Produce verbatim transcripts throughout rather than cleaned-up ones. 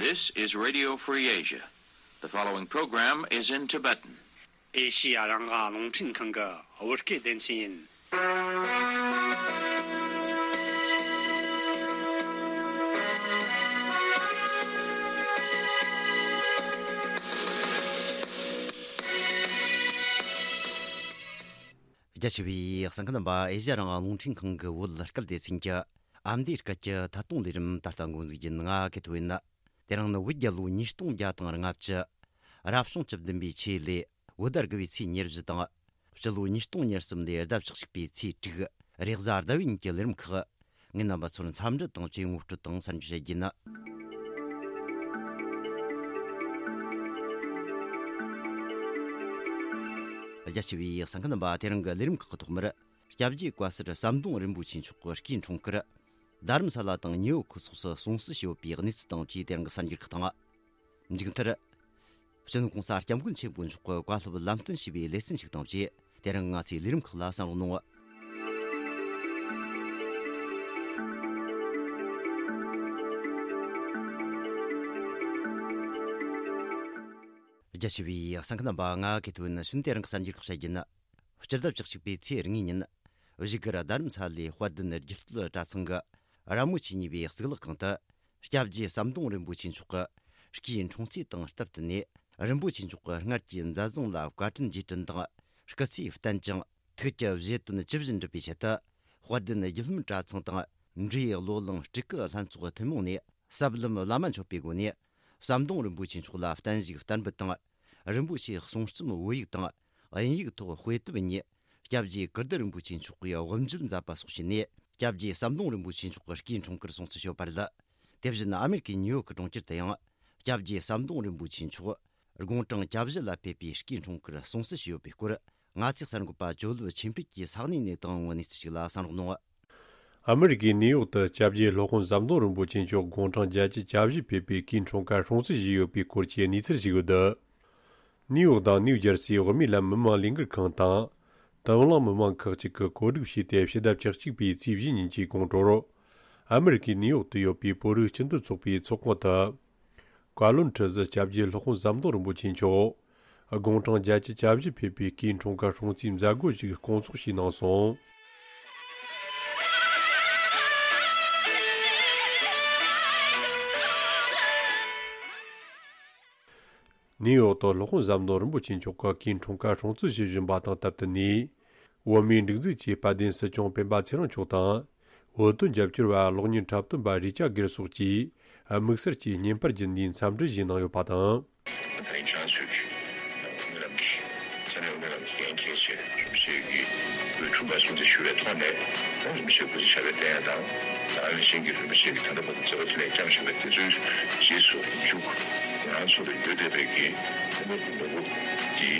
This is Radio Free Asia. The following program is in Tibetan. ཨེ་ཤི་ཡ་རང་དབང་རླུང་འཕྲིན་ཁང་གི་བོད་སྐད་སྡེ་ཚན་ཡིན། རྒྱ་ཆེ་བའི་གསན་མཁན་རྣམ་པ། ཨེ་ཤི་ཡ་རང་དབང་རླུང་འཕྲིན་ཁང་གི་བོད་སྐད་སྡེ་ཚན་གྱི་ཨ་མདོའི་སྐད་ཀྱི་ཐད་གཏོང་ལས་རིམ་ད་ལྟ་འགོ་འཛུགས་ཡིན། ང་གི་ཐོ་ཡིན། དེ་རིང་ནི་བོད་རྒྱལ་ལོ་ཉིས་སྟོང་བརྒྱ་དང་ལྔ་བཅུ། རབ་བྱུང་བཅུ་བདུན་པའི་ཆོས་ལོའི་བོད་ཟླ་དགུ་པའི་ཚེས་ཉེར་བཞི་དང་། སྤྱི་ལོ་ཉིས་སྟོང་ཉེར་གསུམ་ལོའི་ཟླ་བཅུ་གཅིག་པའི་ཚེས་དྲུག་རེས་གཟའ་ཟླ་བའི་ཉིན་གྱི་ལས་རིམ་ཁག་ངས་རྣམ་པ་ཚོར་འཚམས་འདྲི་དང་བཅས་ངོ་སྤྲོད་དང་གསར་འགྱུར་བཤད་རྒྱུ་ཡིན། རྒྱ་ཆེ་བའི་གསན་མཁན་རྣམ་པ། དེ་རིང་གི་ལས་རིམ་ཁག་གི་ཐོག་མར། སྐྱབས་རྗེ་བཀའ་ཟུར་ཟམ་གདོང་རིན་པོ་ཆེ་མཆོག་གི་སྐུའི་འཁྲུངས་སྐར། རྡ་རམ་ས་ལ་དང་ཉེ་ཡོར་ཁུལ་སོགས་སུ་སྲུང་བརྩི་ཞུས་ཡོད་པའི་གནས་ཚུལ་དང་བཅས་དེ་རིང་གི་གསར་འགྱུར་ཁག་དང་། མཇུག་མཐར། སྤྱི་ནོར་༸གོང་ས་༸སྐྱབས་མགོན་ཆེན་པོ་མཆོག་གི་བཀའ་སློབ་ལམ་སྟོན་ཞུས་པའི་ལེ་ཚན་ཞིག་དང་བཅས་དེ་རིང་ང་ཚོའི་ལས་རིམ་ཁག་ལ་གསན་རོགས་གནང་། རྒྱ་ཆེ་བའི་གསན་མཁན་རྣམ་པ། ང་གི་ཐོ་ཡིན། ཤུན་དེ་རིང་གི་གསར་འགྱུར་ཁག་བཤད་རྒྱུ་ཡིན། སྤྱི་ཟླ་བཅུ་གཅིག་པའི་ཚེས་གཉིས་ཉིན། བཞུགས་སྒར་རྡ་རམ་ས་ལའི་དཔལ་ལྡན་རྒྱུད་སྟོད་གྲྭ་ཚང་གི་ར་མོ་ཆེ་གཉིས་པའི་གཙུག་ལག་ཁང་དུ། སྐྱབས་རྗེ་ཟམ་གདོང་རིན་པོ་ཆེ་མཆོག་གི་སྐུའི་འཁྲུངས་ཚེས་དང་སྟབས་བསྟུན་ནས། རིན་པོ་ཆེ་མཆོག་གི་སྔར་གྱི་མཛད་བཟང་ལ་བཀའ་དྲིན་རྗེས་དྲན་དང་། སྐུ་ཚེ་བརྟན་ཅིང་། ཐུགས་ཀྱི་བཞེད་དོན་ཇི་བཞིན་འགྲུབ་པའི་ཆེད་དུ། དཔལ་ལྡན་རྒྱུད་ལམ་གྲྭ་ཚང་དང་། འབྲས་བློ་གླིང་སྤྲུལ་སྐུ་ལྷན་ཚོགས་ཐུན་མོང་ནས། ཟབ་ལམ་བླ་མ་མཆོད་པའི་སྒོ་ནས། ཟམ་གདོང་རིན་པོ་ཆེ་མཆོག་ལ་བརྟན་བཞུགས་བསྟར་འབུལ་དང་། རིན་པོ་ཆེའི་གསུང་རྩོམ་བོད་ཡིག་དང་། དབྱིན་ཡིག་ཐོག་དཔེ་དེབ་གཉིས། སྐྱབས་རྗེ་ཀིརྟི་རིན་པོ་ཆེ་མཆོག་གིས་དབུ་འབྱེད་མཛད་པ་སོགས་བྱས་ནས། སྐྱབས་རྗེ་ཟམ་གདོང་རིན་པོ་ཆེ་མཆོག་གི་སྐུའི་འཁྲུངས་སྐར་སྲུང་བརྩི་ཞུས་པ་རེད། དེ་བཞིན་ཨ་མེ་རི་ཀའི་ཉིའུ་ཡོག་གི་གྲོང་ཁྱེར་དུ་ཡང་། སྐྱབས་རྗེ་ཟམ་གདོང་རིན་པོ་ཆེ་མཆོག་དགུང་གྲངས་གྱ་བཞི་ལ་ཕེབས་པའི་སྐུའི་འཁྲུངས་སྐར་སྲུང་བརྩི་ཞུས་ཡོད་པའི་སྐོར། ང་ཚོའི་གསར་འགོད་པ་ཇོ་ལུ་ཆོས་འཕེལ་གྱིས་ས་གནས་ནས་བཏང་བའི་གནས་ཚུལ་ཞིག་ལ་གསན་རོགས་གནང་། ཨ་མེ་རི་ཀའི་ནིའུ་ཡོག་ཏུ་སྐྱབས་རྗེ་སློབ་དཔོན་ཟམ་གདོང་རིན་པོ་ཆེ་མཆོག་དགུང་གྲངས་བརྒྱད་ཅུ་གྱ་བཞི་ཕེབས་པའི་སྐུའི་འཁྲུངས་སྐར་སྲུང་བརྩི་ཞུས་ཡོད་པའི་སྐོར་གྱི་གནས་ཚུལ་ཞིག་ཡོད། ནིའུ་ཡོག་དང་ནིའུ་ཇར་སིའི་བོད་མིའི་ལམ་མི་མང་ལས་འགུལ་ཁང་དང་། དུམ་བླངས་མི་མང་ཁག་ཅིག་གིས་གོ་སྒྲིག་བྱས་ཏེ། ཕྱི་ཟླ་བཅུ་གཅིག་པའི་ཚེས་བཞི་ཉིན་གྱི་དགོང་དྲོར། ཨ་མེ་རི་ཀའི་ནིའུ་ཡོག་ཏུ་ཡོད་པའི་བོད་རིགས་སྤྱི་མཐུན་ཚོགས་པའི་ཚོགས་ཁང་དུ། བཀའ་བློན་ཁྲི་ཟུར་སྐྱབས་རྗེ་སློབ་དཔོན་ཟམ་གདོང་རིན་པོ་ཆེ་མཆོག་དགུང་གྲངས་བརྒྱད་ཅུ་གྱ་བཞི་ཕེབས་པའི་སྐུའི་འཁྲུངས་སྐར་སྲུང་བརྩིའི་མཛད་སྒོ་ཞིག་སྐོང་ཚོགས་བྱས་གནང་སོང་། ནིའུ་ཡོག་ཏུ་སློབ་དཔོན་ཟམ་གདོང་རིན་པོ་ཆེ་མཆོག་གི་སྐུའི་འཁྲུངས་སྐར་སྲུང་བརྩི་ཞུ་བཞིན་པ་དང་སྟབས་བསྟུན་ནས། བོད་མིའི་སྒྲིག་འཛུགས་ཀྱི་དཔལ་ལྡན་སྲིད་སྐྱོང་སྤེན་པ་ཚེ་རིང་མཆོག་དང་། བོད་དོན་རྒྱབ་སྐྱོར་བ་གློག་བརྙན་འཁྲབ་སྟོན་པ་རི་ཅར་གྷེར་སོགས་ཀྱིས་དམིགས་བསལ་གྱིས་བརྙན་པར་བརྒྱུད་ནས་འཚམས་འདྲི་ཞུས་གནང་ཡོད་པ་དང་། ད་ཡིན་ཁྱེད་རང་ཚོས་ཀྱི་མི་རབས་ཀྱི་ས་གནས་མི་རབས་ཀྱི་འགན་འཁྱེར་བྱས། རིན་པོ་ཆེ་གི་འཁྲུངས་སྐར་སྲུང་བརྩི་ཞུ་བའི་ཐོག་ནས། རིན་པོ་ཆེ་སྐུ་ཚེ་ཞབས་པད་བརྟན་ཡག་དང་། ད་ག་ནང་བཞིན་གྱི་རིན་པོ་ཆེ་གི་ད་ལྟ་བར་དུ་མཛད་པ་དེ་ལས་བསྐྱངས་བཞིན་པའི་དེ་ཚོའི་རྗེས་སུ་འཇུག་ང་རང་ཚོ་ལ་ཡོད་བསྡད་པའི་གི་ཐུན་མོང་གི་ནོར་བུ་འདི་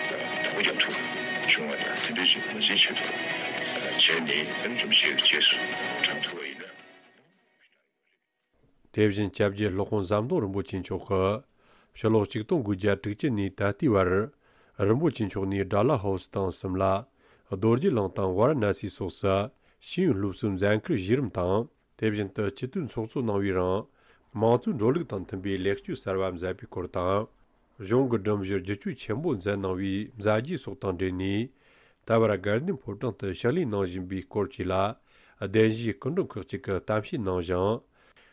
དང་པོ་རྒྱབ་ཐུབ་བྱུང་བ་དང་། དེ་འདྲའི་ཞིག་ངོས་འཛིན་བྱེད་ཐུབ་བྱས་ནས། རིན་པོ་ཆེ་གི་རྗེས་སུ་འབྲང་ཐུབ་པ་ཡིན་ན། དེ་བཞིན་སྐྱབས་རྗེ་སློབ་དཔོན་ཟམ་གདོང་རིན་པོ་ཆེ་མཆོག་གིས་ཕྱི་ལོ་ཆིག་སྟོང་དགུ་བརྒྱ་དྲུག་ཅུ་ནས་ད་ལྟའི་བར། རིན་པོ་ཆེ་མཆོག་ནས་ཌལ་ཧོ་སི་དང་སིམ་ལ། རྡོ་རྗེ་གླིང་དང་ཝཱ་ར་ཎ་སི་སོགས་སུ་ཤེས་ཡོན་སློབ་གསོའི་མཛད་ཁུར་གཞི་རིམ་དང་། དེ་བཞིན་དུ་སྤྱི་འཐུས་ཚོགས་གཙོ་གནང་བའི་རིང་། དམངས་གཙོའི་འགྲོ་ལུགས་དང་མཐུན་པའི་ལེགས་བཅོས་གསར་བ་མཛད་པའི་སྐོར་དང་། གཞུང་གི་སྒྲིམ་གཞི་བསྒྱུར་བཅོས་ཆེན་པོ་མཛད་གནང་བའི་མཛད་རྗེས་སོགས་དང་འབྲེལ་ནས། ད་བར་དགའ་ལྡན་ཕོ་བྲང་དུ་ཕྱག་ལས་གནང་བཞིན་པའི་སྐོར་བཅས་ལ། གདན་ཞུའི་སྐུ་མགྲོན་ཁག་ཅིག་གིས་གཏམ་བཤད་གནང་ཞིང་།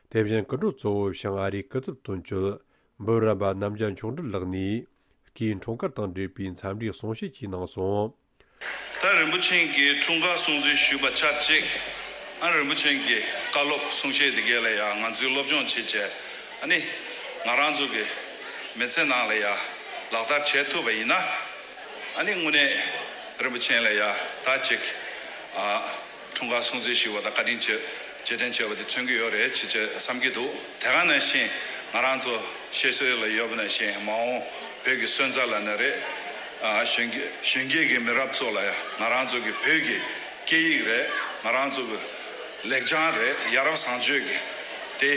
དེ་བཞིན་སྐུ་མགྲོན་གཙོ་བོ་བྱང་ཨ་རིའི་སྐུ་ཚབ་དོན་གཅོད་འབུམ་རམས་པ་རྣམ་རྒྱལ་མཆོག་སྤྲུལ་ལགས་ནས། སྐུའི་འཁྲུངས་སྐར་དང་འབྲེལ་བའི་འཚམས་འདྲིའི་གསུང་བཤད་ཅིག་གནང་སོང་། ད་རིན་པོ་ཆེ་གི་འཁྲུངས་སྐར་སྲུང་བརྩི་ཞུས་པ་ཆ་གཅིག་ཨ་རིན་པོ་ཆེ་གི་བཀའ་སློབ་གསུང་བཤད་དེ་གས་ལ་ཡང་ང་ཚོའི་སློབ་སྦྱོང་བྱེད་བྱས། ཨ་ནི་ང་རང་ཚོ་གི་མི་ཚེ་ནང་ལ་ཡང་ལག་བསྟར་བྱེད་ཐུབ་པ་ཡིན་ན། ཨ་ནི་དངོས་གནས་རིན་པོ་ཆེ་ལ་ཡང་ད་ཅིག་ཨ་འཁྲུངས་སྐར་སྲུང་བརྩི་ཞུས་པ་དང་བཀའ་དྲིན་རྗེས་རྗེས་དྲན་བྱས་པ་དེ་མཚོན་གྱི་ཡོད་རེད་ཅེས་བསམ་གྱི་འདུག་དེ་ག་ནང་བཞིན་ང་རང་ཚོ་བཤད་སྲོལ་ལ་ཡོད་པ་ནང་བཞིན། མ་འོངས་བོད་ཀྱི་སོན་རྩ་ལབ་ན་རེད། ཨ་གཞོན་སྐྱེས་གཞོན་སྐྱེས་ཀྱི་མི་རབས་ཚོ་ལ་ང་རང་ཚོ་གི་བོད་ཀྱི་སྐད་ཡིག་རེད། ང་རང་ཚོ་གི་ལེགས་བྱང་རེད། ཡ་རབས་བཟང་སྤྱོད་ཀྱི་དེ་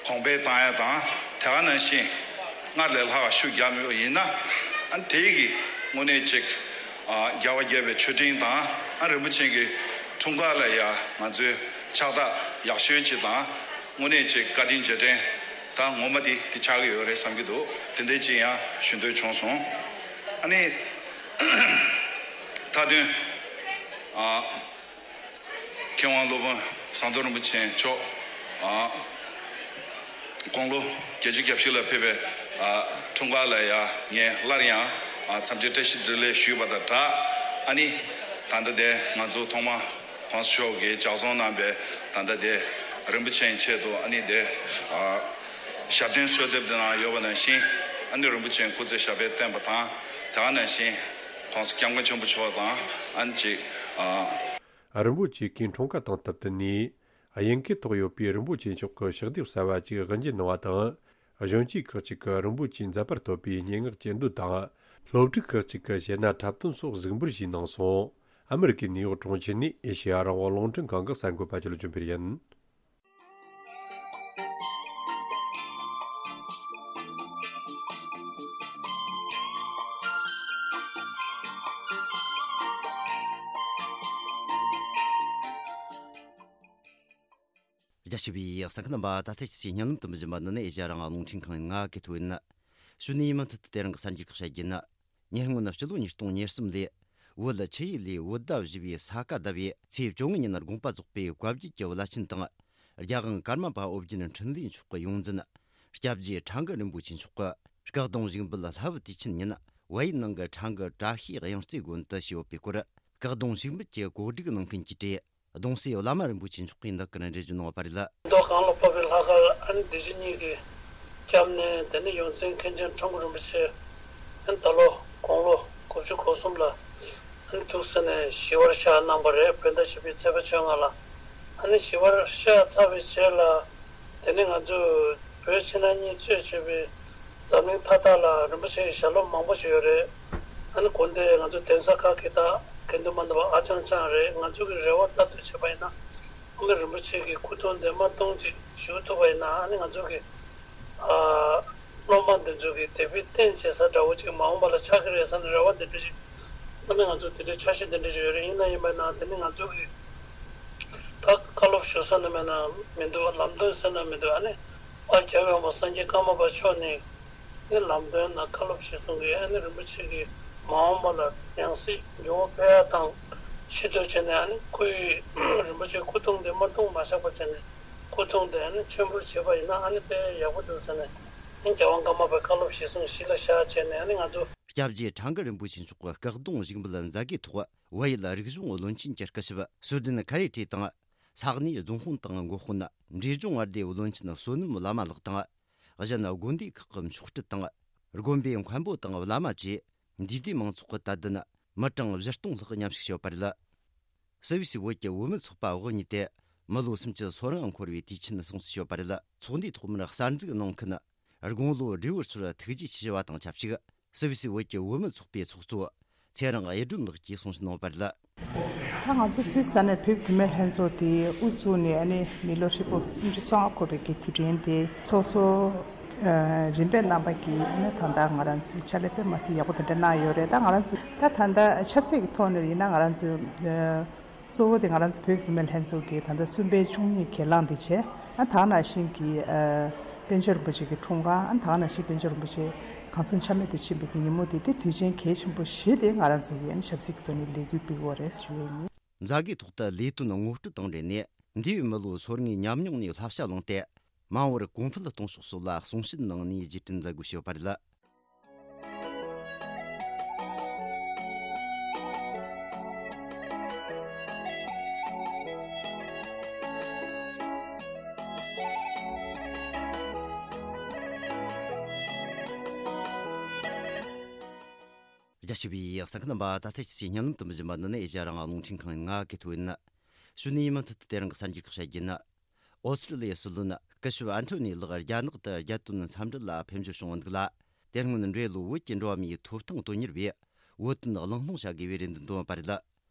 གོང་འཕེལ་བཏང་ཡ་དང་། དེ་ག་ནང་བཞིན་སྔར་ལས་ལྷག་ཤུགས་རྒྱབ་ཡོད་ཡིན་ན། ཨ་དེ་གི་དངོས་གནས་ཅིག་ཨ་རྒྱལ་བ་དགྱེས་པའི་མཆོད་སྤྲིན་དང་། ཨ་རིན་པོ་ཆེ་གི་འཁྲུངས་སྐར་ལ་ཡ་ང་ཚོས་ཕྱག་རྟགས་ཡག་ཤོས་ཅིག་དང་། དངོས་གནས་ཅིག་བཀའ་དྲིན་རྗེས་དྲན་ ད་ངོ་མ་དེ་དེ་ཆགས་ཀྱི་ཡོད་རེད་བསམ་གྱི་འདུག་དེ་འདྲའི་ཅིག་ཡང་ཞུ་འདོད་བྱུང་སོང་། ཨ་ནི་མཐའ་དོན། ཨ། མཁས་དབང་སློབ་དཔོན་ཟམ་གདོང་རིན་པོ་ཆེ་མཆོག་ཨ། དགུང་ལོ་བརྒྱད་ཅུ་གྱ་བཞི་ལ་ཕེབས་པའི་ཨ། འཁྲུངས་སྐར་ལ་ཡང་ངས་སླར་ཡང་ཨ། འཚམས་འདྲི་བཀྲ་ཤིས་བདེ་ལེགས་ཞུས་པ་དང་སྦྲགས། ཨ་ནི་ད་ལྟ་དེ་ང་ཚོ་ཐོག་མ་༸གོང་ས་མཆོག་གིས་ལྗགས་རྩོམ་གནང་པའི་ད་ལྟ་དེ་རིན་པོ་ཆེའི་ཆེད་དུ་ཨ་ནི་དེ་ཨ། ཞབས་བརྟན་གསོལ་འདེབས་དེ་ནང་ཡོད་པ་ནང་བཞིན། ཨ་ནི་རིན་པོ་ཆེའི་སྐུ་ཚེ་ཞབས་པད་བརྟན་པ་དང་། དེ་ག་ནང་བཞིན་༸གོང་ས་༸སྐྱབས་མགོན་ཆེན་པོ་མཆོག་དང་ཨ་ནི་ཅིག་ཨ། རིན་པོ་ཆེ་གིས་འཁྲུངས་སྐར་དང་བསྟུན་ཏེ་ནས། དབྱིན་སྐད་ཐོག་ཡོད་པའི་རིན་པོ་ཆེ་མཆོག་གི་ཕྱག་དེབ་གསར་བ་ཅིག་དབུ་འབྱེད་གནང་བ་དང་། གཞོན་སྐྱེས་ཁག་ཅིག་གིས་རིན་པོ་ཆེའི་མཛད་པར་ཐོབ་པའི་སྙན་ངག་གཅེས་འདོན་དང་། སློབ་ཕྲུག་ཁག་ཅིག་གིས་གཞས་སྣ་འཁྲབ་སྟོན་སོགས་གཟིགས་འབུལ་ཞུས་གནང་སོང་། ཨ་མི་རི་ཀའི་ནིའུ་ཡོག་གྲོང་ཁྱེར་ནས་ཨེ་ཤེ་ཡ་རང་དབང་རླུང་འཕྲིན་ཁང་གི་གསར་འགོད་པ་ཆོས་ལ་འབྱོན་པར་ཡིན། རྒྱ་ཆེ་བའི་གསན་མཁན་རྣམ་པ། ད་ལྟ་ཁྱེད་ཀྱིས་བརྙན་ལམ་དུ་འབུལ་བཞིན་པ་འདི་ནི་ཨེ་ཤ་ཡ་རང་དབང་རླུང་འཕྲིན་ཁང་ཡིན། ང་གི་ཐོ་ཡིན། གཞུག་ནས་མུ་མཐུད་དུ་དེ་རིང་གི་གསར་འགྱུར་ཁག་བཤད་རྒྱུ་ཡིན། ཉེ་སྔོན་སྤྱི་ལོ་ཉིས་སྟོང་ཉེར་གསུམ་ལོའི་བོད་ཆུ་ཡུལ་ལས་བོད་ཟླ་བཞི་པའི་ས་ག་ཟླ་བའི་ཚེས་བཅོ་ལྔ་ཉིན་དགོངས་པ་རྫོགས་པའི་བཀའ་བརྒྱུད་ཀྱི་བླ་ཆེན་དང་། རྒྱལ་དབང་ཀརྨ་པ་ཨོ་རྒྱན་འཕྲིན་ལས་མཆོག་གི་ཡོངས་འཛིན་སྐྱབས་རྗེ་ཁྲ་འགུ་རིན་པོ་ཆེ་མཆོག་གིས་སྐུ་གདུང་བཞུགས་འབུལ་ལྷ་བུ་དུས་ཆེན་ཉིན་བལ་ཡུལ་ནང་གི་ཁྲ་འགུ་བཀྲ་ཤིས་དབྱངས་རྩེ་དགོན་དུ་ཞུས་ཡོད་པའི་སྐོར། སྐུ་གདུང་བཞུགས་འབུལ་གྱི་གོ་སྒྲིག་གནང་མཁན་གྱིས་བྲིས། གདུང་སྲས་བླ་མ་རིན་པོ་ཆེ་མཆོག་གིས་འདི་སྐོར་འགྲེལ་བརྗོད་གནང་བ་རེད། མདོ་གང་ལ་ཕབ་པའི་ལྷ་ཁང་ཨ་ནི་སྡེ་བཞི་གཉིས་ཀྱི་སྐྱབས་གནས། དེ་ནས་ཡོངས་འཛིན་མཁན་ཆེན་ཁྲ་འགུ་རིན་པོ་ཆེ་ཨ་ནི་ད་ལོ་དགུང་ལོ་དགུ་བཅུ་གོ་གསུམ་ལ་ཨ་ནི་ཐུགས་སྲས་ནས་ཞི་བར་གཤེགས་གནང་བ་རེད། བོད་ཟླ་བཞི་པའི་ཚེས་པ་བཅོ་ལྔ་ལ། ཨ་ནི་ཞི་བར་གཤེགས་ཚར་བའི་རྗེས་ལ། དེ་ནས་ང་ཚོས་བོད་ཕྱི་ནང་གཉིས་གཙོས་བྱས་པའི་འཛམ་གླིང་མཐའ་དག་ལ་རིན་པོ་ཆེའི་ཞལ་སློབ་མང་པོ་ཞིག་ཡོད་རེད། ཨ་ནི་དགོན་སྡེ་ང་ཚོ་གདན་ས་ཁག་གི་དག་དགེ་འདུན་མ་འདུག་པ་ཨ་ཅང་ཅང་རེད། ང་ཚོ་གི་རེ་བ་ལྟར་དུ་བྱས་པ་ཡིན་ན། ཨ་ནི་རིན་པོ་ཆེ་གི་སྐུ་གདུང་འདི་མ་གཏོང་ཅིག་བཞུགས་ཐུབ་པ་ཡིན་ན། ཨ་ནི་ང་ཚོ་གི་ཨ་སློབ་མ་འདི་ཚོ་གི་དད་པའི་རྟེན་བྱེད་ས་འདྲ་བོ་ཅིག་མ་འོངས་པ་ལ་ཆགས་ཀྱི་རེད་བསམ་ནས་རེ་བ་འདི་འདྲ་ཅིག་ཨ་ནི་ང་ཚོ་དེ་འདྲའི་འཆར་གཞི་འདི་འདྲ་ཅིག་ཡོད་རེད། ཡིན་ན་ཡིན་པ་ན་དེ་ནི་ང་ཚོ་གི་ད་བཀའ་སློབ་ཞུ་ས་ནི་མེད་ན་མི་འདུག་ལམ་སྟོན་ཟེར་ན་མི་འདུག་ཨ་ནི་པར་རྒྱབ་ཡོང་བ་སངས་རྒྱས་ཀརྨ་པ་མཆོག་ནས་ནི་ལམ་སྟོན་དང་བཀའ་སློབ་ཞུ་སོང་གི། ཨ་ནི་རིན་པོ་ཆེ་གི་མ་འོངས་པ་ལ་ཡང་སྲིད་འགྱུར་བ་ཕེབས་ཡ་དང་ཕྱི་དོན་བྱས་ནས། ཨ་ནི་སྐུའི་རིན་པོ་ཆེ་སྐུ་གདུང་དེ་མ་གཏོང་མ་བཞག་པ་བྱས་ནས་སྐུ་གདུང་དེ་ཨ་ནི་མཆོད་འབུལ་བྱས་པ་ཡིན་ན་ཨ་ནི་དཔེ་ཡག་པོ་འདུག་ཟེར་ནས། ཨ་ནི་རྒྱལ་དབང་ཀརྨ་པའི་བཀའ་སློབ་གཞིར་བཟུང་གཞི་ལ་བཞག་བྱས་ནས། ཨ་ནི་ང་ཚོ་སྐྱབས་རྗེ་ཁྲ་འགུ་རིན་པོ་ཆེ་མཆོག་གི་སྐུ་གདུང་བཞུགས་འབུལ་མཛད་སྒོའི་ཐོག་བལ་ཡུལ་རིག་གཞུང་བློན་ཆེན་གྱི་སྐུ་ཞབས་སུ་ཌན་ཁ་རེ་ཏི་དང་། ས་གནས་རྫོང་དཔོན་དང་འགོ་དཔོན། འབྲས་ལྗོངས་མངའ་སྡེའི་བློན་ཆེན་བསོད་ནམས་བླ་མ་ལགས་དང་། གཞན་དགོན་སྡེ་ཁག་གི་མཆོག་སྤྲུལ་དང་། དགོན་པའི་མཁན་པོ་དང་བླ་མ་བཅས་འདུས་སྡེ་མང་ཚོགས་ཀྱི་དད་ལྡན་མི་གྲངས་བཞི་སྟོང་ལྷག་མཉམ་ཞུགས་བྱས་ཡོད་པ་རེད། སུད་སི་བོད་ཀྱི་བུད་མེད་ཚོགས་པ་འོག་གཉིས་ཏེ་མི་ལོ་སུམ་ཅུ་སོ་ལྔ་འཁོར་བའི་དུས་ཆེན་སྲུང་བརྩི་བྱས་ཡོད་པ་རེད། ཚོགས་འདུའི་ཐོག་མར་གསར་འཛུགས་གནང་མཁན་དགུང་ལོ་བགྲེས་པོ་ཚོར་ཐུགས་རྗེ་ཆེ་ཞུ་བ་དང་ཆབས་ཅིག་སུད་སི་བོད་ཀྱི་བུད་མེད་ཚོགས་པའི་ཚོགས་གཙོ་ཚེ་རིང་གཡུ་སྒྲོན་ལགས་ཀྱིས་གསུང་བཤད་གནང་བ་རེད། ད་ང་ཚོ་སུད་སི་ས་གནས་བོད་བུད་མེད་ལྷན་ཚོགས་དེ་དབུ་བཙུགས་ནས་ཨ་ནི་མི་ལོ་ཧྲིལ་པོ་སུམ་ཅུ་སོ་ལྔ་འཁོར་བའི་གི་དུས་དྲན་དེ་ཚོགས་གཙོ་ཨ་རིམ་པས་གནང་པ་གི་ཨ་ནི་ད་ལྟ་ང་རང་ཚོའི་ཕྱག་ལས་དཔེ་མ་སྲིད་ཡག་པོ་དེ་འདྲ་གནང་ཡོད་རེད། ད་ང་རང་ཚོ་ད་ད་ལྟ་ཆབ་སྲིད་ཀྱི་ཐོག་ནས་ཡིན་ན་ང་རང་ཚོ་ཨ་གཙོ་བོ་དེ་ང་རང་ཚོ་བོད་བུད་མེད་ལྷན་ཚོགས་ཀྱི་ད་ལྟ་གསུམ་པའི་བཅུ་གཉིས་གྱེན་ལངས་དེ་བྱས། ཨ་ད་ག་ནང་བཞིན་གྱི་ཨ་པཎ་ཆེན་རིན་པོ་ཆེ་གི་འཁྲུངས་སྐར། ཨ་ད་ག་ནང་བཞིན་པཎ་ཆེན་རིན་པོ་ཆེ་གང་གསུང་ཆ་མེད་དུ་ཕྱིན་པའི་གི་ཉིན་མོ་དེ་དེ་དུས་ཆེན་གལ་ཆེན་པོ་བཞི་དེ་ང་རང་ཚོ་གི་ཨ་ནི་ཆབ་སྲིད་ཀྱི་ཐོག་ནས་ལས་འགུལ་སྤེལ་གྱི་ཡོད་རེད་ཞུ་ཡས་ཡིན། མཛད་སྒོའི་ཐོག་ཏུ་ལས་དོན་ངོ་སྤྲོད་དང་འབྲེལ་ནས་འདས་པའི་མི་ལོ་སོ་ལྔའི་ཉམས་མྱོང་ནས་བསླབ་བྱ་བླངས་ཏེ། མ་འོངས་པར་གོང་འཕེལ་གཏོང་ཕྱོགས་སོགས་ལ་གསུང་བཤད་གནང་ནས་རྗེས་དྲན་མཛད་སྒོ་ཞུས་པ་རེད། རྒྱ་ཆེ་བའི་གསན་མཁན་རྣམ་པ། ད་ལྟ་ཁྱེད་ཀྱིས་བརྙན་ལམ་དུ་འབུལ་བཞིན་པ་འདི་ནི་ཨེ་ཤ་ཡ་རང་དབང་རླུང་འཕྲིན་ཁང་ཡིན། ང་གི་ཐོ་ཡིན། གཞུག་ནས་མུ་མཐུད་དུ་དེ་རིང་གི་གསར་འགྱུར་ཁག་བཤད་རྒྱུ་ཡིན། ཨོ་སི་ཀྲི་ལི་ཡའི་སྲིད་བློན་སྐུ་ཞབས་ཨན་ཐོ་ནི་ལགས་རྒྱ་ནག་ཏུ་རྒྱལ་དོན་འཚམས་འདྲི་ལ་ཕེབས་འབྱོར་བྱུང་བ་འདུག་ལ། དེ་སྔོན་འབྲེལ་ལོ་བོད་ཀྱི་འགྲོ་བ་མིའི་ཐོབ་ཐང་དོན་གཉེར་བས་བོད་དོན་གླེང་སློང་བྱ་དགོས་པའི་རེ་འདུན་བཏོན་པ་རེད།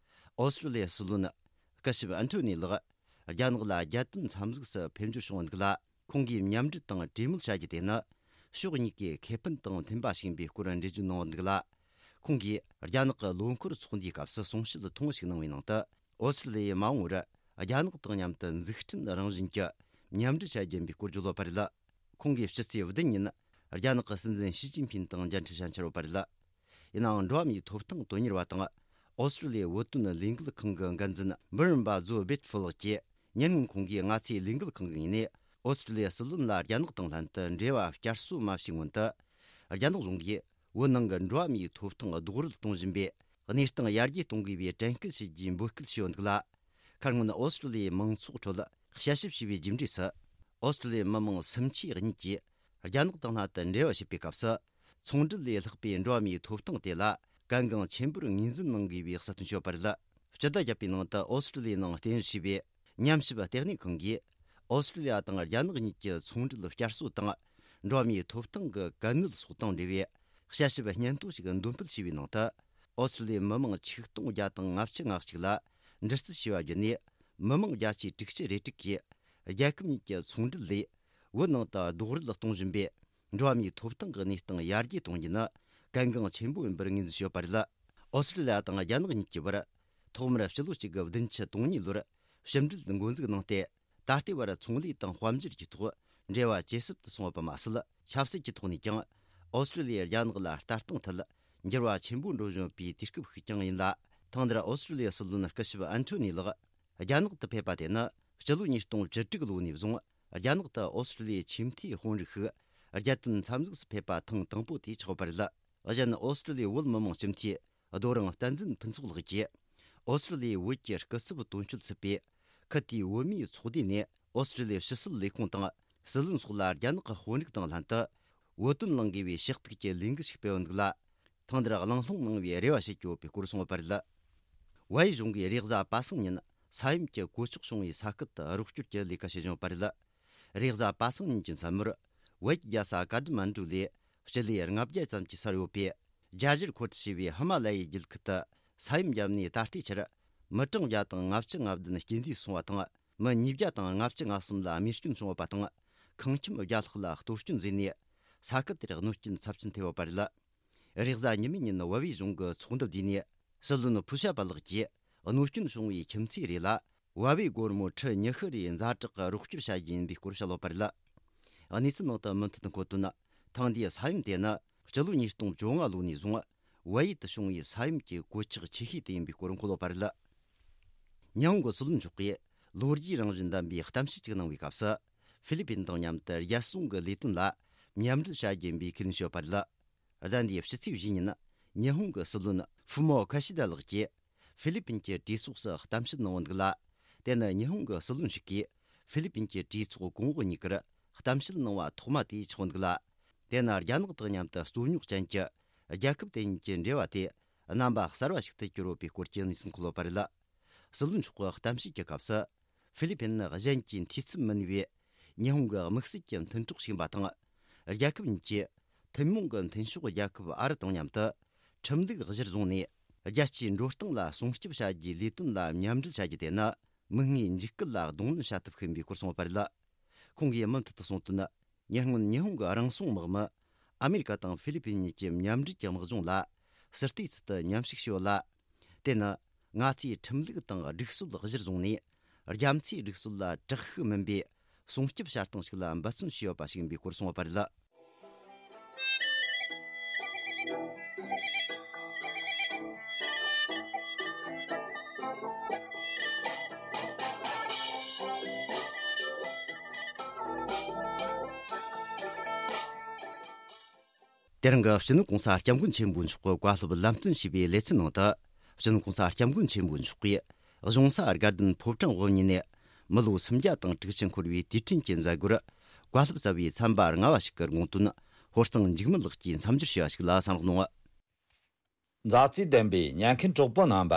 ཨོ་སི་ཀྲི་ལི་ཡའི་སྲིད་བློན་སྐུ་ཞབས་ཨན་ཐོ་ནི་ལགས་རྒྱ་ནག་ལ་རྒྱལ་དོན་འཚམས་གཟིགས་སུ་ཕེབས་འབྱོར་བྱུང་བ་འདུག་ལ། ཁོང་གིས་མཉམ་འབྲེལ་དང་གྲོས་མོལ་བྱ་རྒྱུ་དེ་ནི་ཕྱོགས་གཉིས་ཀའི་ཁེ་ཕན་དང་མཐུན་པ་ཞིག་ཡིན་པའི་སྐོར་འགྲེལ་བརྗོད་གནང་བ་འདུག་ལ། ཁོང་གིས་རྒྱ་ནག་གི་ལོ་འཁོར་ཚོགས་འདུའི་སྐབས་སུ་གསུང་བཤད་ཐུང་ཞིག་གནང་བའི་ནང་དུ། ཨོ་སི་ཀྲི་ལི་ཡས་མ་འོངས་པར་རྒྱ་ནག་དང་མཉམ་དུ་འཛུགས་སྐྲུན་རང་བཞིན་གྱི་མཉམ་འབྲེལ་བྱ་རྒྱུ་ཡིན་པའི་སྐོར་བརྗོད་ཡོད་པ་རེད། ཁོང་གིས་ཕྱི་ཚེས་བདུན་ཉིན་རྒྱ་ནག་གི་སྲིད་འཛིན་ཞི་ཅིན་ཕིན་དང་མཇལ་འཕྲད་བྱ་འཆར་ཡོད་པ་རེད། ཡིན་ནའང་འགྲོ་བ་མིའི་ཐོབ་ཐང་དོན་གཉེར་བ་དང་ཨོ་སི་ཀྲི་ལི་ཡའི་བོད་དོན་ལས་འགུལ་ཁང་གི་འགན་འཛིན་འབུམ་རམས་པ་ཛོ་སྦེད་ཧྥུ་ལགས་ཀྱིས། ཉེ་སྔོན་ཁོང་གིས་ང་ཚོའི་ལས་འགུལ་ཁང་གི་ངོས་ནས་ཨོ་སི་ཀྲི་ལི་ཡའི་སྲིད་བློན་ལ་རྒྱ་ནག་དང་ལྷན་དུ་འབྲེལ་བ་བསྐྱར་གསོ་མ་བྱས་སྔོན་དུ། རྒྱ་ནག་གཞུང་གིས་བོད་ནང་གི་འགྲོ་བ་མིའི་ཐོབ་ཐང་རྡོག་རོལ་གཏོང་བཞིན་པའི་གནས་སྟངས་ཡར་རྒྱས་གཏོང་དགོས་པའི་དྲན་སྐུལ་བྱེད་རྒྱུའི་འབོད་སྐུལ་བྱས་ཡོད་འདུག་ལ། ཁ་སྔོན་ཨོ་སི་ཀྲི་ལི་ཡའི་མང་ཚོགས་ཁྲོད་དཔྱད་ཞིབ་བྱས་པའི་རྒྱུ་འབྲས་སུ། ཨོ་སི་ཀྲི་ལི་ཡའི་མི་མང་སུམ་ཆའི་གཉིས་ཀྱིས་རྒྱ་ནག་དང་ལྷན་དུ་འབྲེལ་བ་བྱེད་པའི་སྐབས་སུ། ཚོང་འབྲེལ་ལས་ལྷག་པའི་འགྲོ་བ་མིའི་ཐོབ་ཐང་དེ་ལ་གལ་འགངས་ཆེན་པོར་ངོས་འཛིན་གནང་དགོས་པའི་གསལ་སྟོན་བྱས་ཡོད་པ་རེད། སྤྱི་ཟླ་བརྒྱད་པའི་ནང་དུ་ཨོ་སི་ཀྲི་ལི་ཡའི་ནང་རྟེན་གཞི་བྱས་པའི་ཉམས་ཞིབ་ལྟེ་གནས་ཁང་གིས། ཨོ་སི་ཀྲི་ལི་ཡ་དང་རྒྱ་ནག་གཉིས་ཀྱི་ཚོང་འབྲེལ་བསྐྱར་གསོ་དང་། འགྲོ་བ་མིའི་ཐོབ་ཐང་གི་གལ་གནད་སོགས་དང་འབྲེལ་བའི་དཔྱད་ཞིབ་སྙན་ཐོ་ཞིག་འདོན་སྤེལ་བྱས་པའི་ནང་དུ། ཨོ་སི་ཀྲི་ལི་ཡའི་མི་མང་ཆིག་སྟོང་བརྒྱ་དང་ལྔ་བཅུ་ང་གཅིག་ལ་འདྲི་རྩད་བྱས་པ་བརྒྱུད་ནས། མི་མང་བརྒྱ་ཆའི་དྲུག་ཅུ་རེ་དྲུག་གིས། རྒྱལ་ཁབ་གཉིས་ཀྱི་ཚོང་འབྲེལ་ལས་བོད་ནང་དུ་རྡོག་རོལ་གཏོང་བཞིན་པའི་འགྲོ་བ་མིའི་ཐོབ་ཐང་གི་གནས་སྟངས་ཡར་རྒྱས་གཏོང་རྒྱུ་ནི་གལ་འགངས་ཆེན་པོ་ཡིན་པར་ངོས་འཛིན་བྱས་ཡོད་པ་རེད། ཨོ་སི་ཀྲི་ལི་ཡ་དང་རྒྱ་ནག་གཉིས་ཀྱི་བར་ཐོག་མར་སྤྱི་ལོ་གཅིག་དགུ་བདུན་ཅུ་དོན་གཉིས་ལོར་ཕྱི་འབྲེལ་འགོ་འཛུགས་གནང་སྟེ། ད་ལྟའི་བར་ཚོང་ལས་དང་དཔལ་འབྱོར་གྱི་ཐོག་འབྲེལ་བ་ཇེ་ཟབ་ཏུ་སོང་བ་མ་ཟད། ཆབ་སྲིད་ཀྱི་ཐོག་ནས་ཀྱང་ཨོ་སི་ཀྲི་ལི་ཡས་རྒྱ་ནག་ལ་ལྟ་སྟངས་ཐད་འགྱུར་བ་ཆེན་པོ་འགྲོ་བཞིན་པའི་དུས་སྐབས་ཤིག་ཀྱང་ཡིན་ལ། ཐེངས་འདིར་ཨོ་སི་ཀྲི་ལི་ཡའི་སྲིད་བློན་སྐུ་ཞབས་ཨན་ཐོ་ནི་ལགས་རྒྱ་ནག་ཏུ་ཕེབས་པ་དེ་ནི་སྤྱི་ལོ་ཉིས་སྟོང་བཅུ་དྲུག་ལོ་ནས་བཟུང་རྒྱ་ནག་ཏུ་ཨོ་སི་ཀྲི་ལི་ཡའི་ཆེས་མཐོའི་དཔོན་རིགས་ཤིག་རྒྱལ་དོན་འཚམས་གཟིགས་སུ་ཕེབས་པ་ཐེངས་དང་པོ་དེ་ཆགས་པ་རེད། གཞན་ཨོ་སི་ཀྲི་ལི་ཡའི་བོད་མི་མང་སྤྱི་འཐུས་རྡོ་རིང་བསྟན་འཛིན་ཕུན་ཚོགས་ལགས་ཀྱིས། ཨོ་སི་ཀྲི་ལི་ཡའི་བོད་ཀྱི་སྐུ་ཚབ་དོན་གཅོད་ཚུད་པའི་ཁུ་ཐིའི་བོད་མིའི་ཚོགས་སྡེ་ནས་ཨོ་སི་ཀྲི་ལི་ཡའི་ཕྱི་སྲིད་ལས་ཁུངས་དང་སྲིད་བློན་སོགས་ལ་རྒྱ་ནག་གི་དཔོན་རིགས་དང་ལྷན་དུ་བོད་དོན་གླེང་དགོས་པའི་ཞུ་གཏུག་གི་ལས་འགུལ་ཞིག་སྤེལ་ཡོད་འདུག་ལ། ཐེངས་འདིར་གླེང་སློང་གནང་བའི་རེ་བ་བྱེད་ཀྱི་ཡོད་པའི་སྐོར་གསུངས་ཡོད་པ་རེད། བལ་ཡུལ་གཞུང་གིས་རེས་གཟའ་པ་སངས་ཉིན་ས་ཡོམ་གྱི་གོད་ཆག་བྱུང་བའི་ས་ཁུལ་དུ་རོགས་སྐྱོར་གྱི་ལས་ཀ་བྱེད་བཞིན་ཡོད་པ་རེད། རེས་གཟའ་པ་སངས་ཉིན་གྱི་མཚན་མོར་བལ་གྱི་རྒྱལ་ས་ཀ་ཐ་མན་ཌུ་ལས་སྤྱི་ལེ་ལྔ་བརྒྱ་ཙམ་གྱི་སར་ཡོད་པའི་རྒྱ་ཞར་ཁོ་ཐི་ཞེས་པའི་ཧི་མ་ལ་ཡའི་རྒྱུད་ཁུལ་དུ་ས་ཡོམ་བརྒྱབ་ནས་ད་ལྟའི་ཆར་མི་གྲངས་བརྒྱ་དང་ལྔ་བཅུ་ང་བདུན་རྐྱེན་འདས་སོང་བ་དང་། མི་ཉིས་བརྒྱ་དང་ལྔ་བཅུ་ང་གསུམ་ལ་རྨས་སྐྱོན་བྱུང་ཡོད་པ་དང་། ཁང་ཁྱིམ་བརྒྱ་ལྷག་ལ་གཏོར་སྐྱོན་བཟོས་ནས་ས་ཁུལ་དེར་གནོད་སྐྱོན་ཚབས་ཆེན་ཐེབས་ཡོད་པ་རེད། རེས་གཟའ་ཉི་མའི་ཉིན་བལ་བོའི་གཞུང་གི་ཚོགས་འདུ་བསྡུས་ནས་སྲིད་བློན་ཕུ་ཤ་པ་ལགས་ཀྱིས་གནོད་སྐྱོན་བྱུང་བའི་ཁྱིམ་མཚེས་རེ་ལ་བལ་བོའི་སྒོར་མོ་ཁྲི་ཉི་ཤུ་རེའི་ཛ་དྲག་གི་རོགས་སྐྱོར་བྱ་རྒྱུ་ཡིན་པའི་སྐོར་བཤད་ཡོད་པ་རེད། གནས་ཚུལ་ནང་དུ་མུ་མཐུད་འཁོད་དོན། ཐེངས་འདིའི་ས་ཡོམ་དེ་ནི་སྤྱི་ལོ་ཉིས་སྟོང་བཅོ་ལྔ་ལོ་ནས་བཟུང་བལ་ཡུལ་དུ་བྱུང་བའི་ས་ཡོམ་གྱི་གོད་ཆག་ཆེ་ཤོས་དེ་ཡིན་པའི་སྐོར་འཁོད་ཡོད་པ་རེད། ཉི་ཧོང་གི་སྲིད་བློན་མཆོག་གིས་ལོ་རྒྱུས་རང་བཞིན་ལྡན་པའི་གཏམ་བཤད་ཅིག་གནང་བའི་སྐབས་སུ། ཧྥི་ལི་པིན་དང་མཉམ་དུ་རྒྱལ་སྲུང་གི་ལས་དོན་ལ་མཉམ་འབྲེལ་བྱ་རྒྱུ་ཡིན་པའི་ཁས་ལེན་བྱས་ཡོད་པ་རེད། ཟླ་འདིའི་ཕྱི་ཚེས་བཞི་ཉིན་ཉི་ཧོང་གི་སྲིད་བློན་ཧྥུ་མོ་ཁ་ཤི་ད་ལགས་ཀྱིས་ཧྥི་ལི་པིན་གྱི་གྲོས་ཚོགས་སུ་གཏམ་བཤད་གནང་ཡོད་འདུག་ལ། དེ་ནི་ཉི་ཧོང་གི་སྲིད་བློན་ཞིག་གིས་ཧྥི་ལི་པིན་གྱི་གྲོས་ཚོགས་གོང་འོག་གཉིས་ཀར་གཏམ་བཤད་གནང་བ་ཐོག་མ་དེ་ཆགས་ཡོད་འདུག་ལ། དེ་ནི་རྒྱ་ནག་དང་མཉམ་དུ་རྩོད་རྙོག་ཅན་གྱི་རྒྱལ་ཁབ་དེ་གཉིས་ཀྱི་འབྲེལ་བ་དེ་རྣམ་པ་གསར་བ་ཞིག་ཏུ་གྱུར་ཡོད་པའི་སྐོར་གྱི་གནས་ཚུལ་འཁོད་ཡོད་པ་རེད། སྲིད་བློན་མཆོག་གི་གཏམ་བཤད་ཀྱི་སྐབས་སུ། ཧྥི་ལི་པིན་ནི་གཞན་གྱིས་འཐུས་ཚབ་མིན་པའི་ཉི་ཧོང་གི་དམིགས་བསལ་གྱི་མཐུན་གྲོགས་ཤིག་ཡིན་པ་དང་། རྒྱལ་ཁབ་གཉིས་ཀྱིས་ཐུན་མོང་གི་མཐུན་ཕྱོགས་རྒྱལ་ཁབ་ཨ་རི་དང་མཉམ་དུ་ཁྲིམས་ལུགས་གཞིར་བཟུང་ནས་རྒྱལ་སྤྱིའི་འགྲོ་སྟངས་ལ་སྲུང་སྐྱོབ་བྱ་རྒྱུའི་ལས་དོན་ལ་མཉམ་འབྲེལ་བྱ་རྒྱུ་དེ་ནི་མིག་སྔའི་འཇིགས་སྐུལ་ལ་གདོང་ལེན་བྱ་ཐབས་ཤིག་ཡིན་པའི་སྐོར་གསུངས་ཡོད་པ་རེད། ཁོང་གིས་མུ་མཐུད་དུ་གསུངས་དོན། ཉེ་སྔོན་ཉི་ཧོང་གི་རང་སྲུང་དམག་མི་ཨ་མེ་རི་ཀ་དང་ཧྥི་ལི་པིན་གཉིས་ཀྱི་མཉམ་འབྲེལ་གྱི་དམག་སྦྱོང་ལ་སྲིད་བལྟས་ཚུལ་དུ་མཉམ་ཞུགས་བྱས་ཡོད་ལ། དེ་ནི་ང་ཚོས་ཁྲིམས་ལུགས་དང་སྒྲིག་སྲོལ་གཞིར་བཟུང་ནས་རྒྱ་མཚོའི་སྒྲིག་སྲོལ་ལ་དྲག་ཤུགས་མིན་པའི་སྲུང་སྐྱོབ་བྱ་སྟངས་ཤིག་ལ་འབད་བརྩོན་བྱས་ཡོད་པ་ཞིག་ཡིན་པའི་སྐོར་གསུངས་ཡོད་པ་རེད། དེ་རིང་གི་སྤྱི་ནོར་གོང་ས་སྐྱབས་མགོན་ཆེན་པོ་མཆོག་གི་བཀའ་སློབ་ལམ་སྟོན་ཞུས་པའི་ལེ་ཚན་ནང་དུ། སྤྱི་ནོར་གོང་ས་སྐྱབས་མགོན་ཆེན་པོ་མཆོག་གིས་གཞུང་ས་དགའ་ལྡན་ཕོ་བྲང་དབུ་བརྙེས་ནས་མི་ལོ་སུམ་བརྒྱ་དང་དྲུག་ཅུ་འཁོར་བའི་དུས་དྲན་གྱི་མཛད་སྒོར་བཀའ་སློབ་སྩལ་བའི་ཚན་པ་ལྔ་བ་ཞིག་གི་དགོངས་དོན་ཧོར་གཙང་འཇིགས་མེད་ལགས་ཀྱིས་མཚམས་སྦྱོར་ཞུས་པ་ཞིག་ལ་གསན་རོགས་གནང་། མཛའ་བརྩེ་ལྡན་པའི་ཉན་མཁན་གྲོགས་པོ་རྣམ་པ།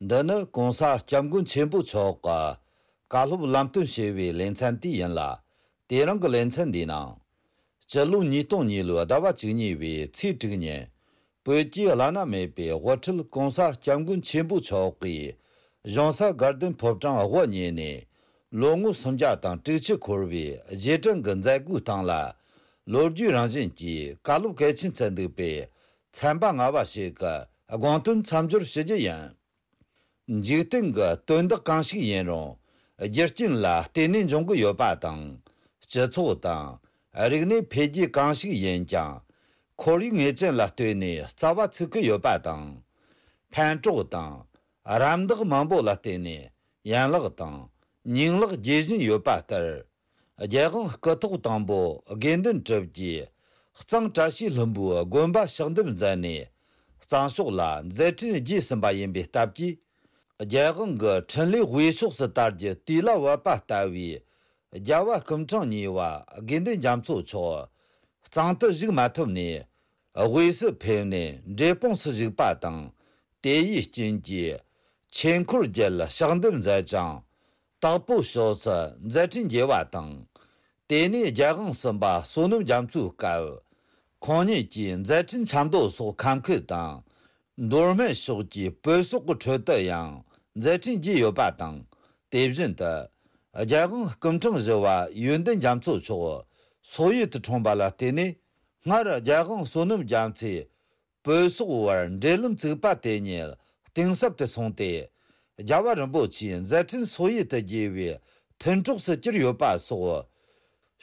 འདི་ནི་གོང་ས་སྐྱབས་མགོན་ཆེན་པོ་མཆོག་གི་བཀའ་སློབ་ལམ་སྟོན་ཞེས་པའི་ལེ་ཚན་དེ་ཡིན་ལ། དེ་རིང་གི་ལེ་ཚན་འདིའི་ནང་། སྤྱི་ལོ་ཉིས་སྟོང་གཉིས་ལོའི་ཟླ་བ་བཅུ་གཉིས་པའི་ཚེས་དྲུག་ཉིན། བོད་ཀྱི་བླ་ན་མེད་པའི་དབུ་ཁྲིད་གོང་ས་སྐྱབས་མགོན་ཆེན་པོ་མཆོག་གིས་གཞུང་ས་དགའ་ལྡན་ཕོ་བྲང་དབུ་བརྙེས་ནས་ལོ་ངོ་སུམ་བརྒྱ་དང་དྲུག་ཅུ་འཁོར་བའི་རྗེས་དྲན་གྱི་མཛད་སྒོའི་སྟེང་ལ། ལོ་རྒྱུས་རང་བཞིན་གྱིས་བཀའ་སློབ་གལ་ཆེན་བསྩལ་འདུག་པས། ཚན་པ་ལྔ་བ་ཞིག་གི་དགོངས་དོན་མཚམས་སྦྱོར་ཞུ་རྒྱུ་ཡིན། འཇིག་རྟེན་གྱི་དོན་དག་གང་ཞིག་ཡིན་རུང་། རྒྱུ་རྐྱེན་ལ་བརྟེན་ནས་འབྱུང་གི་ཡོད་པ་དང་། སྤྱི་ཚོགས་དང་ རིག་གནས་འཕེལ་རྒྱས་གང་ཞིག་ཡིན་ཀྱང་། ཁོར་ཡུག་ངེས་ཅན་ལ་ལྟོས་ནས་རྩ་བ་ཚུགས་ཀྱི་ཡོད་པ་དང་། ཕན་གྲོགས་དང་། རམ་འདེགས་མང་པོ་ལ་བརྟེན་ནས་ཡན་ལག་དང་། ཉིང་ལག་རྒྱས་བཞིན་ཡོད་པ་ལྟར། རྒྱལ་དབང་སྐུ་ཐོག་དང་པོ་དགེ་འདུན་གྲུབ་རྗེས། གཙང་བཀྲ་ཤིས་ལྷུན་པོའི་དགོན་པ་ཕྱག་འདེབས་མཛད་ནས། གཙང་ཕྱོགས་ལ་མཛད་འཕྲིན་རྒྱས་ཟིན་པ་ཡིན་པའི་སྟབས་ཀྱིས། རྒྱལ་དབང་གི་འཕྲིན་ལས་དབུས་ཕྱོགས་སུ་དར་རྒྱུ་དུས་ལ་བབ་པ་ལྟ་བུའི། རྒྱལ་བ་སྐུ་ཕྲེང་གཉིས་པ་དགེ་འདུན་རྒྱ་མཚོ་མཆོག་གཙང་དུ་བཞུགས་མ་ཐུབ་ནས། དབུས་སུ་ཕེབས་ནས་འབྲས་སྤུངས་སུ་བཞུགས་པ་དང་། དེ་ཡི་རྐྱེན་གྱིས། ཆོས་འཁོར་རྒྱལ་ཕྱག་འདེབས་མཛད་ཅིང་། དྭགས་པོ་ཕྱོགས་སུ་མཛད་འཕྲིན་རྒྱས་པ་དང་། དེ་ནས་རྒྱལ་དབང་གསུམ་པ་བསོད་ནམས་རྒྱ་མཚོའི་སྐབས། ཁོང་ཉིད་ཀྱིས་མཛད་འཕྲིན་ཆབ་མདོ་སོགས་ཁམས་ཁུལ་དང་། མདོ་སྨད་ཕྱོགས་ཀྱི་བོད་སོག་གི་ཁྲོད་དུ་ཡང་མཛད་འཕྲིན་རྒྱས་ཡོད་པ་དང་། དེ་བཞིན་དུ། རྒྱལ་དབང་སྐུ་ཕྲེང་བཞི་པ་ཡོན་ཏན་རྒྱ་མཚོ་མཆོག་སོག་ཡུལ་དུ་འཁྲུངས་པ་ལ་བརྟེན་ནས། སྔར་རྒྱལ་དབང་བསོད་ནམས་རྒྱ་མཚོས་བོད་སོག་བར་འབྲེལ་ལམ་བཙུགས་པ་དེ་ཉིད་གཏིང་ཟབ་ཏུ་སོང་སྟེ། རྒྱལ་བ་རིན་པོ་ཆེའི་མཛད་འཕྲིན་སོག་ཡུལ་དུ་རྒྱས་པའི་མཐུན་གྲོགས་སུ་གྱུར་ཡོད་པ་སོགས།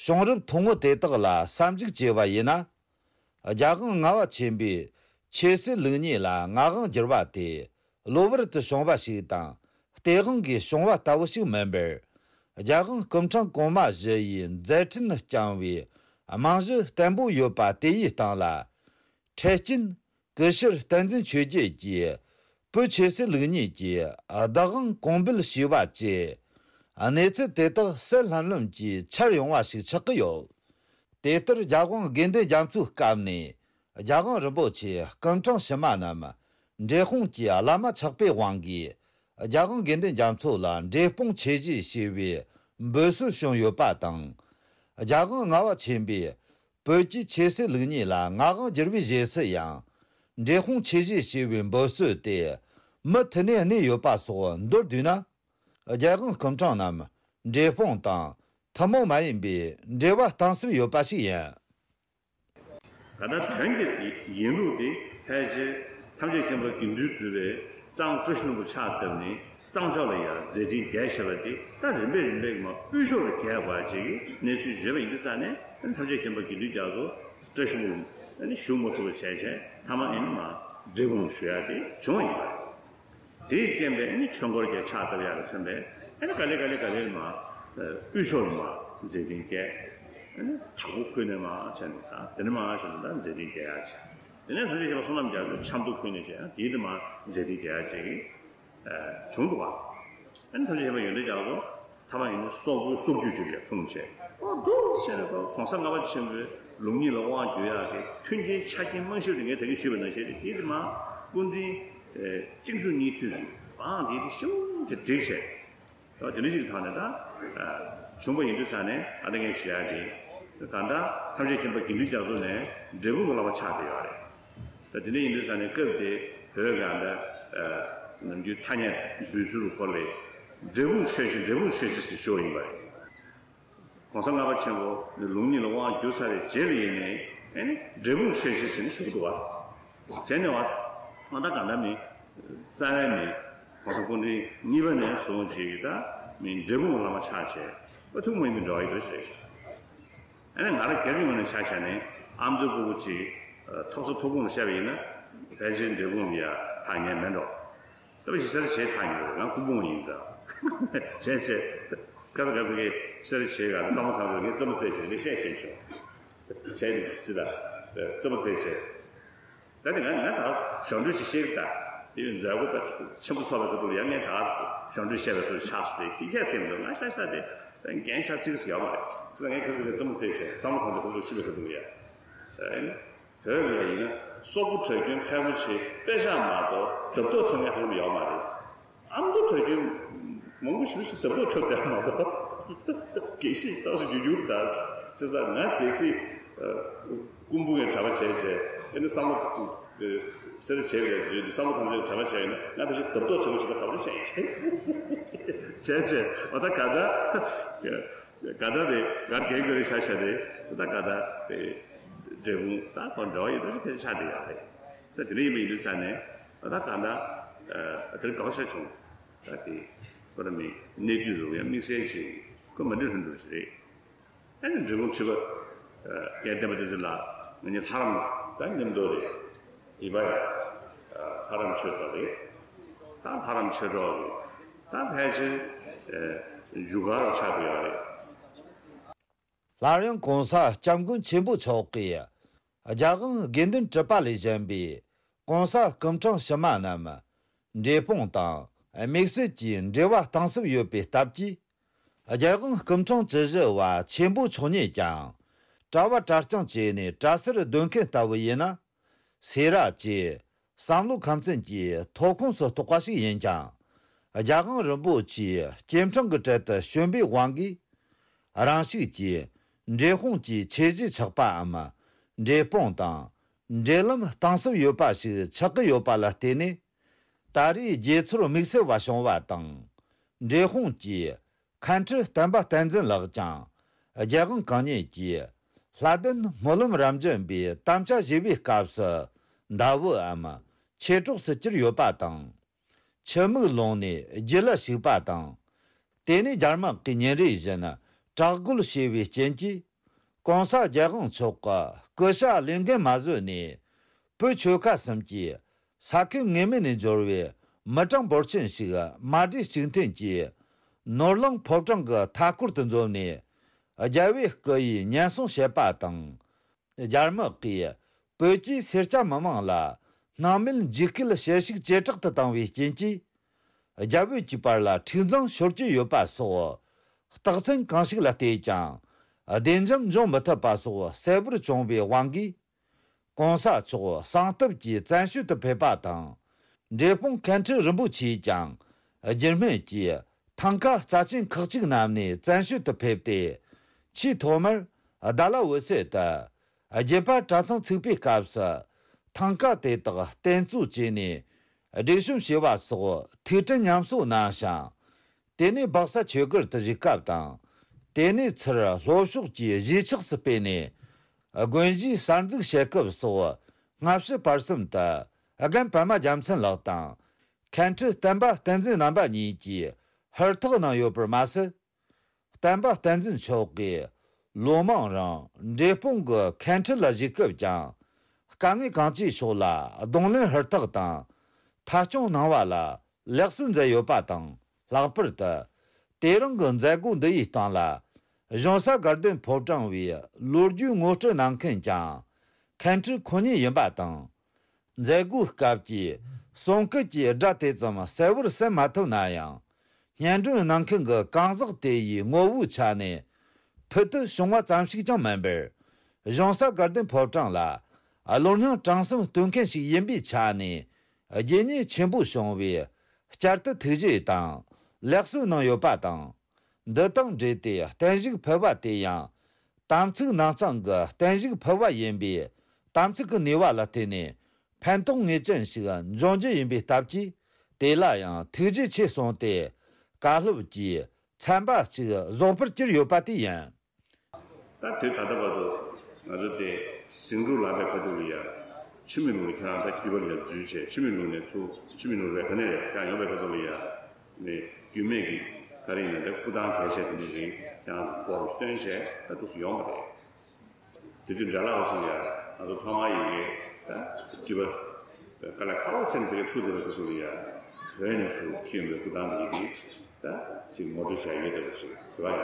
བྱུང་རབས་ཐུང་ངུ་དེ་དག་ལ་བསམ་གཞིགས་བྱས་པ་ཡིན་ན། རྒྱལ་དབང་ལྔ་པ་ཆེན་པོས་ཆོས་སྲིད་ལུགས་གཉིས་ལ་མངའ་དབང་བསྒྱུར་བ་དེ་གློ་བུར་དུ་བྱུང་བ་ཞིག་དང་། སྟེས་དབང་གིས་བྱུང་བ་ལྟ་བུ་ཞིག་མིན་པར། རྒྱལ་དབང་སྐུ་ཕྲེང་གོང་མ་བཞི་ཡི་མཛད་འཕྲིན་བསྐྱངས་པའི་རྨང་གཞི་བརྟན་པོ་ཡོད་པ་དེ་ཡི་སྟེང་ལ། འཕྲལ་རྐྱེན། སྐུ་ཞབས་བསྟན་འཛིན་ཆོས་རྒྱལ་གྱིས་བོད་ཆོས་སྲིད་ལུགས་གཉིས་ཀྱི་བདག་དབང་གོང་འབུལ་ཞུས་པ་བཅས། གནས་ཚུལ་དེ་དག་གསལ་ལྷམ་ལྷམ་གྱིས་འཆར་ཡོང་བ་ཞིག་ཆགས་ཀྱི་ཡོད། དེ་ལྟར་རྒྱལ་དབང་དགེ་འདུན་རྒྱ་མཚོའི་སྐབས་ནས་རྒྱལ་དབང་རིན་པོ་ཆེ་སྐུ་ཕྲེང་ཕྱི་མ་རྣམས་འབྲས་སྤུངས་ཀྱི་བླ་མ་ཆགས་པའི་དབང་གིས། རྒྱལ་དབང་དགེ་འདུན་རྒྱ་མཚོ་ལ་འབྲས་སྤུངས་ཆོས་གཞིས་ཞེས་པའི་འབོད་སྲོལ་བྱུང་ཡོད་པ་དང་། རྒྱལ་དབང་ལྔ་པ་ཆེན་པོས། བོད་ཀྱི་ཆོས་སྲིད་ལུགས་གཉིས་ལ་མངའ་དབང་བསྒྱུར་བའི་རྗེས་སུ་ཡང་། འབྲས་སྤུངས་ཆོས་གཞིས་ཞེས་པའི་འབོད་སྲོལ་དེ་མུ་མཐུད་ནས་གནས་ཡོད་པ་སོགས་མདོར་བསྡུས་ན། རྒྱལ་དབང་སྐུ་ཕྲེང་རྣམས་འབྲས་སྤུངས་དང་ཐུན་མོང་མ་ཡིན་པའི་འབྲེལ་བ་གཏིང་ཟབ་ཡོད་པ་ཞིག་ཡིན། ད་ལྟ་བོན་གྱི་ཡིན་ལུགས་དེ་ཕལ་ཆེར་ཐམས་ཅད་མཁྱེན་པ་དགེ་འདུན་གྲུབ་པས་གཙང་བཀྲ་ཤིས་ལྷུན་པོ་ཕྱག་བཏབ་ནས་གཙང་ཕྱོགས་ལ་ཡང་མཛད་འཕྲིན་རྒྱས་བྱས་པ་དེ་ད་རིམ་པས་རིམ་པས་མ་དབུས་ཕྱོགས་ལ་རྒྱས་པ་ཅིག་གི་གནས་ཚུལ་བརྗོད་པ་ཡིན་དུས་ཙང་ནས་ཐམས་ཅད་མཁྱེན་པ་དགེ་འདུན་རྒྱ་མཚོ་བཀྲ་ཤིས་ལྷུན་པོ་ཞུ་མ་ཐུབ་པ་བྱས་བྱས་མཐའ་མ་ཨེ་ནི་མ་འབྲས་སྤུངས་ཞུ་ཡ་དེ་བྱུང་བ་ཡིན་པ་རེད། དེས་རྐྱེན་པས་ནི་ཆོས་འཁོར་རྒྱལ་ཕྱག་བཏབ་ཡག་ལ་མཚོན་པས་ཨ་ནི་ག་ལེ་ག་ལེ་ག་ལེ་མ་དབུས་ཕྱོགས་ལ་མ་མཛད་འཕྲིན་རྒྱས། ཨ་ནི་དྭགས་པོ་ཁུལ་ནས་མ་བྱས་ནས་ད་དེ་ནས་མ་བྱས་ནས་ད་མཛད་འཕྲིན་རྒྱས་ཡག་བྱས། དེ་ནས་ཐམས་ཅད་མཁྱེན་པ་བསོད་ནམས་རྒྱ་མཚོ་ཆབ་མདོ་ཁུལ་ནས་བྱས་ཡང་དེའི་དེ་མ་མཛད་འཕྲིན་རྒྱས་ཡག་བྱས་ཀྱི་བྱུང་འདུག་བ། ཨ་ནི་ཐམས་ཅད་མཁྱེན་པ་ཡོན་ཏན་རྒྱ་མཚོ་ཐ་མ་ཡིན་ན་སོག་པོའི་སོག་རྒྱུད་ཅིག་ལ་འཁྲུངས་བྱས། ཨོ་འདུག་བྱས་ནས་གོང་ས་ལྔ་པ་ཆེན་པོའི་ལུགས་གཉིས་ལ་དབང་བསྒྱུར་ཡག་གི་མཐུན་རྐྱེན་ཆ་རྐྱེན་རྨང་གཞི་དེ་ངས་ད་གིན་ཞུས་པ་ནང་བཞིན་རེད། དེ་དེ་མ་སྐུ་ཕྲེང་། ཨེ། གཅིག་མཇུག་གཉིས་མཐུད་ཀྱི་བང་དེ་དེ་ཤུགས་ཀྱིས་བསྒྲིགས་བྱས། ད་དེ་འདྲ་ཞིག་གི་ཐོག་ནས་ད་བྱུང་བ་ཡིན་དུས་ཙང་ནས་ཨ་ད་ངས་ཞུ་ཡག་དེ་གང་ལྟར་ཐམས་ཅད་མཁྱེན་པ་དགེ་འདུན་རྒྱ་མཚོ་ནས་འབྲས་སྤུངས་ཀྱི་བླ་མ་ཆགས་བསྡད་ཡོད་རེད། ད་དེ་འདྲ་ཡིན་དུས་ཙང་ནས་སྐབས་དེ་བོད་གང་ལྟར་ནམ་རྒྱུན་ཐ་སྙད་འབོད་ཚུལ་སྐོར་ལས་འབྲས་སྤུངས་ཆོས་གཞིས་འབྲས་སྤུངས་ཆོས་གཞིས་ཟེར་ཞུ་བ་ཡིན་པ་རེད། གོང་ས་ལྔ་པ་ཆེན་པོ་ནི་ལུགས་གཉིས་ལ་དབང་བསྒྱུར་ཚར་བའི་རྗེས་ལ་ཡིན་ནའི་ཨེ་ནི་འབྲས་སྤུངས་ཆོས་གཞིས་ཟེར་ནས་ཞུ་གི་འདུག་བ། བྱས་ནས་བ། ང་ད་ག་འདྲ་མིན། རྩ་བའི་མིང་། གོང་ས་སྐུ་ཕྲེང་གཉིས་པ་ནས་བཟུང་བྱས་ཀྱི་ད་མིང་འབྲས་སྤུངས་བླ་མ་ཆགས་བྱས། པ་ཐུགས་མ་ཡིན་པའི་འགྲོ་བ་ཡི་འདུ་ཤེས་རེད་ཤག་ཨ་ནི་ང་རང་སྒེར་གྱི་ངོས་ནས་ཆ་བཞག་ནས་ཨ་མདོའི་སྤོ་བོ་གཅིག་ཐོག་ས་ཐུགས་དགོངས་ལ་བཤད་པ་ཡིན་ན་ཕལ་ཆེར་འབྲས་སྤུངས་ལ་ཡ་ཐག་ཉེ་མེད་འགྲོ། ད་བཞི་སེར་བྱེས་ཐག་ཉེ་རེད། ང་སྐུ་ཕུང་ཡིན་ཙང་། བྱས་བྱས། ཁ་ས་ག་བི་གའི་སེར་བྱེས་ག་ད་བསམ་བློ་གང་ཚོད་ངས་རྩེད་མོ་རྩེ་བྱས་ངས་བཤད་བཤད་བྱུང་། བྱས་ནས་སི་ད། རྩེད་མོ་རྩེ་བྱས། ད་དེ་ང་ང་ད་གཞོན་འཕྲུལ་ཞིག་ཤེས་ཀྱི་ད། དེ་མཛད་སྒོ་པ་ཆེན་པོ་ཚོགས་པའི་ཁ་ཐུག་ལ་ཡང་ངས་ད་གཞོན་འཕྲུལ་བཤད་པའི་སོ་ཆགས་སོ་དེ་དེ་ཁྱད་སྐད་མི་འདུག་ང་ཤ་ཤ་དེ་འགན་ཤ་ཚིག་ཟིག་ཡོད་མ་རེད། ཙི་ད་ངས་ཁ་ས་ག་བི་གའི་རྩེད་མོ་རྩེ་བྱས་བསམ་བློ་གང་ཚོད་ག་ཚོད་ཤི་བའི་ཁ་ཐུག་ལ་ཡ། བོད་ལ་ཡིན་ན་སོག་པོ་གྲྭ་རྒྱུན་ཕལ་མོ་ཆེ་དཔེ་ཆ་མ་གཏོགས་འདབ་ཐོག་འཁྲབ་མཁན་ཧ་ལམ་ཡོད་མ་རེད། ཨ་མདོ་གྲྭ་རྒྱུན་མང་པོ་ཞེ་པོ་ཞིག་འདབ་ཐོག་འཁྲབ་བསྡད་མ་གཏོགས། གལ་སྲིད་ཏོག་ཙམ་རྒྱུ་འགྱུར་ད། བྱས་ཙང་ང་གལ་སྲིད་སྐུ་འབུ་ངས་གྲྭ་པ་བྱས་བྱས་ཨ་ནི་བསམ་བློ་སེར་བྱས་པའི་རྫུན་འདི་བསམ་བློ་གང་ཚོད་གྲྭ་པ་བྱས་ཡིན་ན་ང་ཕལ་ཆེར་འདབ་ཐོག་འཁྲབ་པ་ཞིག་ལ་ག་པར་བཤད་ཡིན། བྱས་བྱས་འོ་ད་ག་ད། ག་ད་རེད་གར་རྒྱག་དགོས་རེད་ཤག་ཤག་རེད། ད་ག་ད་རེད། འབྲས་སྤུངས་ད་ཁོ་འབྲེལ་བ་ཡོད་པ་ཞིག་ཕལ་ཆེར་ཆགས་བསྡད་ཡོད་རེད། ད་དེ་འདྲ་ཡིན་པ་ཡིན་དུས་ཙང་ནས་ད་ག་ད་དེར་དགའ་བ་ཤ་བྱུང་། ད་དེ་ཁོ་ར་མི་གནས་དུས་རུ་ཡང་དམིགས་བསལ་ཅིག་ཁོ་མ་འདྲ་ལྷུན་གྲུབ་ཅིག་རེད། ཨ་ནི་འབྲས་སྤུངས་ཁྲི་པ། སྐལ་ལྡན་པ་དེ་ཚོ་ལ་ང་གཉིས་ལྷ་རམས་ད་མཉམ་དུ་རེད། ཡིན་པ་ཡ། ལྷ་རམས་ཆོས་གྲོགས་རེད། ད་ལྷ་རམས་ཆོས་གྲོགས་རེད། ད་ཕལ་ཆེར་རྒྱུ་སྐར་ཆགས་ཀྱི་ཡོད་རེད། སླར་ཡང་གོང་ས་སྐྱབས་མགོན་ཆེན་པོ་མཆོག་གིས་རྒྱལ་དབང་དགེ་འདུན་གྲུབ་པ་ལས་གཞན་པའི་གོང་ས་སྐུ་ཕྲེང་ཕྱི་མ་རྣམས་འབྲས་སྤུངས་དང་དམིགས་བསལ་གྱི་འབྲེལ་བ་གཏིང་ཟབ་ཡོད་པའི་སྟབས་ཀྱིས། རྒྱལ་དབང་སྐུ་ཕྲེང་བཅུ་བཞི་པ་ཆེན་པོ་མཆོག་ཉིད་ཀྱང་གྲྭ་བ་གྲྭ་རྐྱང་བཅས་ནས་གྲྭ་སར་སྡོད་མཁན་ལྟ་བུ་ཡིན་ན། སེ་ར་བཅས་བསམ་བློ་ཁམས་ཚན་གྱི་ཐོབ་ཁོངས་སུ་གཏོགས་པ་ཞིག་ཡིན་ཀྱང་། རྒྱལ་དབང་རིན་པོ་ཆེའི་སྐྱེ་འཕྲེང་གི་གྲལ་དུ་བྱོན་པའི་དབང་གིས། རང་ཞིག་གིས་འབྲས་སྤུངས་ཀྱི་ཆོས་གཞིས་ཆགས་པའམ། འབྲས་སྤུངས་དང་འབྲེལ་ལམ་གཏིང་ཟབ་ཡོད་པ་ཞིག་ཆགས་ཀྱི་ཡོད་པ་ལ་བརྟེན་ནས། ད་རེས་དགྱེས་ཚོར་དམིགས་བསལ་བ་བྱུང་བ་དང་། འབྲས་སྤུངས་ཀྱི་མཁན་ཁྲི་བསྟན་པ་བསྟན་འཛིན་ལགས་ཀྱང་རྒྱལ་དབང་གང་ཉིད་ཀྱི་ལྷ་ལྡན་སྨོན་ལམ་རབ་འབྱམས་པའི་དམ་བཅའ་བཞེས་པའི་སྐབས་སུ་ཟླ་བོའམ་མཆེད་གྲོགས་སུ་གྱུར་ཡོད་པ་དང་། ཆུ་མིག་ལུང་ནས་རྒྱུད་ལ་ཞུགས་པ་དང་། དེ་ནས་རྒྱ་དམག་གིས་ཉིན་རེ་བཞིན་དྲག་རྒོལ་བྱས་པའི་རྐྱེན་གྱིས། གོང་ས་རྒྱལ་དབང་མཆོག་གི་སྐུ་ཤ་ལེན་མཁན་མ་བཟོད་ནས། བོད་ཆོལ་ཁ་གསུམ་གྱི་ས་ཁུལ་ངེས་མེད་ནས་འབྱོར་བའི་མི་གྲངས་འབོར་ཆེན་ཞིག་མ་གྲོས་གཅིག་མཐུན་གྱིས་ནོར་གླིང་ཕོ་བྲང་གི་མཐའ་སྐོར་དུ་འཛོམས་ནས། རྒྱལ་བའི་སྐུ་ཡི་ཉེན་སྲུང་བྱེད་པ་དང་། རྒྱ་དམག་གིས་བོད་ཀྱི་སེར་སྐྱ་མི་མང་ལ་སྣང་མེད་འཇིགས་སྐུལ་བྱེད་ཤུགས་ཇེ་དྲག་ཏུ་བཏང་བའི་རྐྱེན་གྱིས། རྒྱ་བོད་ཀྱི་བར་ལ་འཁྲུག་འཛིང་ཤོར་གྱི་ཡོད་པ་སོགས། རྟགས་མཚན་གང་ཞིག་ལ་བལྟས་ཀྱང་བདེ་འཇགས་འབྱུང་མི་ཐུབ་པ་སོགས་གསལ་པོར་བྱུང་བའི་དབང་གིས། གོང་ས་མཆོག་གསང་སྟབས་ཀྱིས་བཙན་བྱོལ་དུ་ཕེབས་པ་དང་། འབྲས་སྤུངས་མཁན་ཁྲི་རིན་པོ་ཆེས་ཀྱང་རྒྱུད་སྨད་ཀྱི་ཐང་ཀ་རྩ་ཆེན་ཁག་ཅིག་བསྣམས་ནས་བཙན་བྱོལ་དུ་ཕེབས་ཏེ། ཆེས་ཐོག་མར་རྡ་ལ་འོད་གསལ་དུ་རྒྱུད་པ་གྲྭ་ཚང་ཚུགས་པའི་སྐབས་སུ་ཐང་ཀ་དེ་དག་རྟེན་གཙོ་བྱས་ནས་སྒྲིག་གཤོམ་བྱས་པ་སོགས་ཐུགས་དྲན་ཉམས་གསོ་གནང་ཞིང་། དེ་ནས་སྦག་ས་ཆོས་སྒར་དུ་བཞུགས་སྐབས་དང་། དེ་ནས་ཚུར་ལྷོ་ཕྱོགས་ཀྱི་གཞིས་ཆགས་སུ་སྤོས་ནས་དགོན་གཞིས་གསར་འཛུགས་བྱེད་སྐབས་སོགས་སྔ་ཕྱི་བར་གསུམ་དུ་རྒན་པདྨ་རྒྱལ་མཚན་ལགས་དང་། མཁན་ཁྲི་བསྟན་པ་བསྟན་འཛིན་རྣམ་པ་གཉིས་ཀྱིས་ཧུར་ཐག་གནང་ཡོད་པར་མ་ཟད། བསྟན་པ་བསྟན་འཛིན་མཆོག་གིས་ལོ་མང་རིང་འབྲས་སྤུངས་ཀྱི་མཁན་ཁྲི་ལ་བཞུགས་སྐབས་ཀྱང་དཀའ་ངལ་གང་ཅིའི་ཕྱོགས་ལ་གདོང་ལེན་ཧུར་ཐག་དང་མཐའ་སྐྱོང་གནང་བ་ལ་ལེགས་གསོལ་མཛད་ཡོད་པ་དང་། ལྷག་པར་དུ་དེ་རིང་གི་མཛད་སྒོ་འདི་ཡི་སྟེང་ལ་གཞུང་ས་དགའ་ལྡན་ཕོ་བྲང་བའི་ལོ་རྒྱུས་ངོ་སྤྲོད་གནང་མཁན་ཀྱང་མཁན་ཁྲི་ཁོ་ཉིད་ཡིན་པ་དང་། མཛད་སྒོའི་སྐབས་ཀྱི་གསུང་སྐད་ཀྱི་སྒྲ་དེ་ཙམ་གསལ་བོར་གསན་མ་ཐུབ་ན་ཡང་། སྙན་སྒྲོན་གནང་མཁན་གྱི་གང་ཟག་དེ་ཡི་ངོ་བོའི་ཆ་ནས་ཕུལ་དུ་བྱུང་བ་ཙམ་ཞིག་ཀྱང་མིན་པར། གཞུང་ས་དགའ་ལྡན་ཕོ་བྲང་ལ་བློ་སྙིང་བྲང་གསུམ་བསྟོད་མཁན་ཞིག་ཡིན་པའི་ཆ་ནས་རྗེས་སྙེག་ཆེན་པོ་བྱུང་བའི་བསྐྱར་དུ་ཐུགས་རྗེ་དང་ལེགས་གསོལ་གནང་ཡོད་པ་དང་། འདི་དང་འབྲེལ་ཏེ་བརྟན་བཞུགས་ཕུལ་བ་དེ་ཡང་། དམ་ཚིག་ནང་གཙང་གི་བརྟན་བཞུགས་ཕུལ་བ་ཡིན་པས། དམ་ཚིག་གི་ནུས་པ་ལ་བརྟེན་ནས་ཕན་ཐོགས་ངེས་ཅན་ཞིག་འབྱུང་རྒྱུ་ཡིན་པའི་སྟབས་ཀྱིས། དེ་ལ་ཡང་ཐུགས་རྗེ་ཆེ་གསུངས་ཏེ། བཀའ་སློབ་ཀྱི་ཚན་པ་གཅིག་རྫོགས་པར་གྱུར་ཡོད་པ་དེ་ཡིན། ད་དུས་ད་ལྟ་བར་དུ་ང་ཚོ་དེ་ཟིང་འཁྲུག་ལངས་པའི་ཁ་ཐུག་ལ་ཡ། ཆུ་མིག་ལུང་ནས་ཁྱེད་རང་ད་རྒྱུད་པ་ལ་འཛུལ་བྱས། ཆུ་མིག་ལུང་ནས་ཚུར་ཆུ་མིག་ལུང་རེད། ག་ནས་རེད། ཁྱེད་རང་ཡོང་པའི་ཁ་ཐུག་ལ་ཡ། ནས་རྒྱུད་སྨད་ཀྱི་ག་རེ་ཡིན་ན་དེ་སྐུ་ཐང་གལ་ཆེ་དེ་འདྲ་རིང་ཁྱེད་རང་སྐོར་སྟོན་བྱས། ད་འདུག་སེ་ཡོང་བ་རེད། དེ་དུས་འདྲ་ལག་སོང་ཡ། ང་ཚོ་ཐོག་མར་ཡི་གེ་ད་རྒྱུད་པ་དཀའ་ལས་ཁག་པོ་བྱས་ནས་དེ་གའི་ཚུར་བསྡད་པའི་ཁ་ཐུག་ལ་ཡ། བོད་ནས་ཚུར་ཁྱེར་ཡོང་པའི་སྐུ་ཐང་དེ་ཡི་གེ་ད་ཅིག་ངོ་སྤྲོད་བྱས་ཡོད་དེ་ཅིག་དེ་བ་ཡ།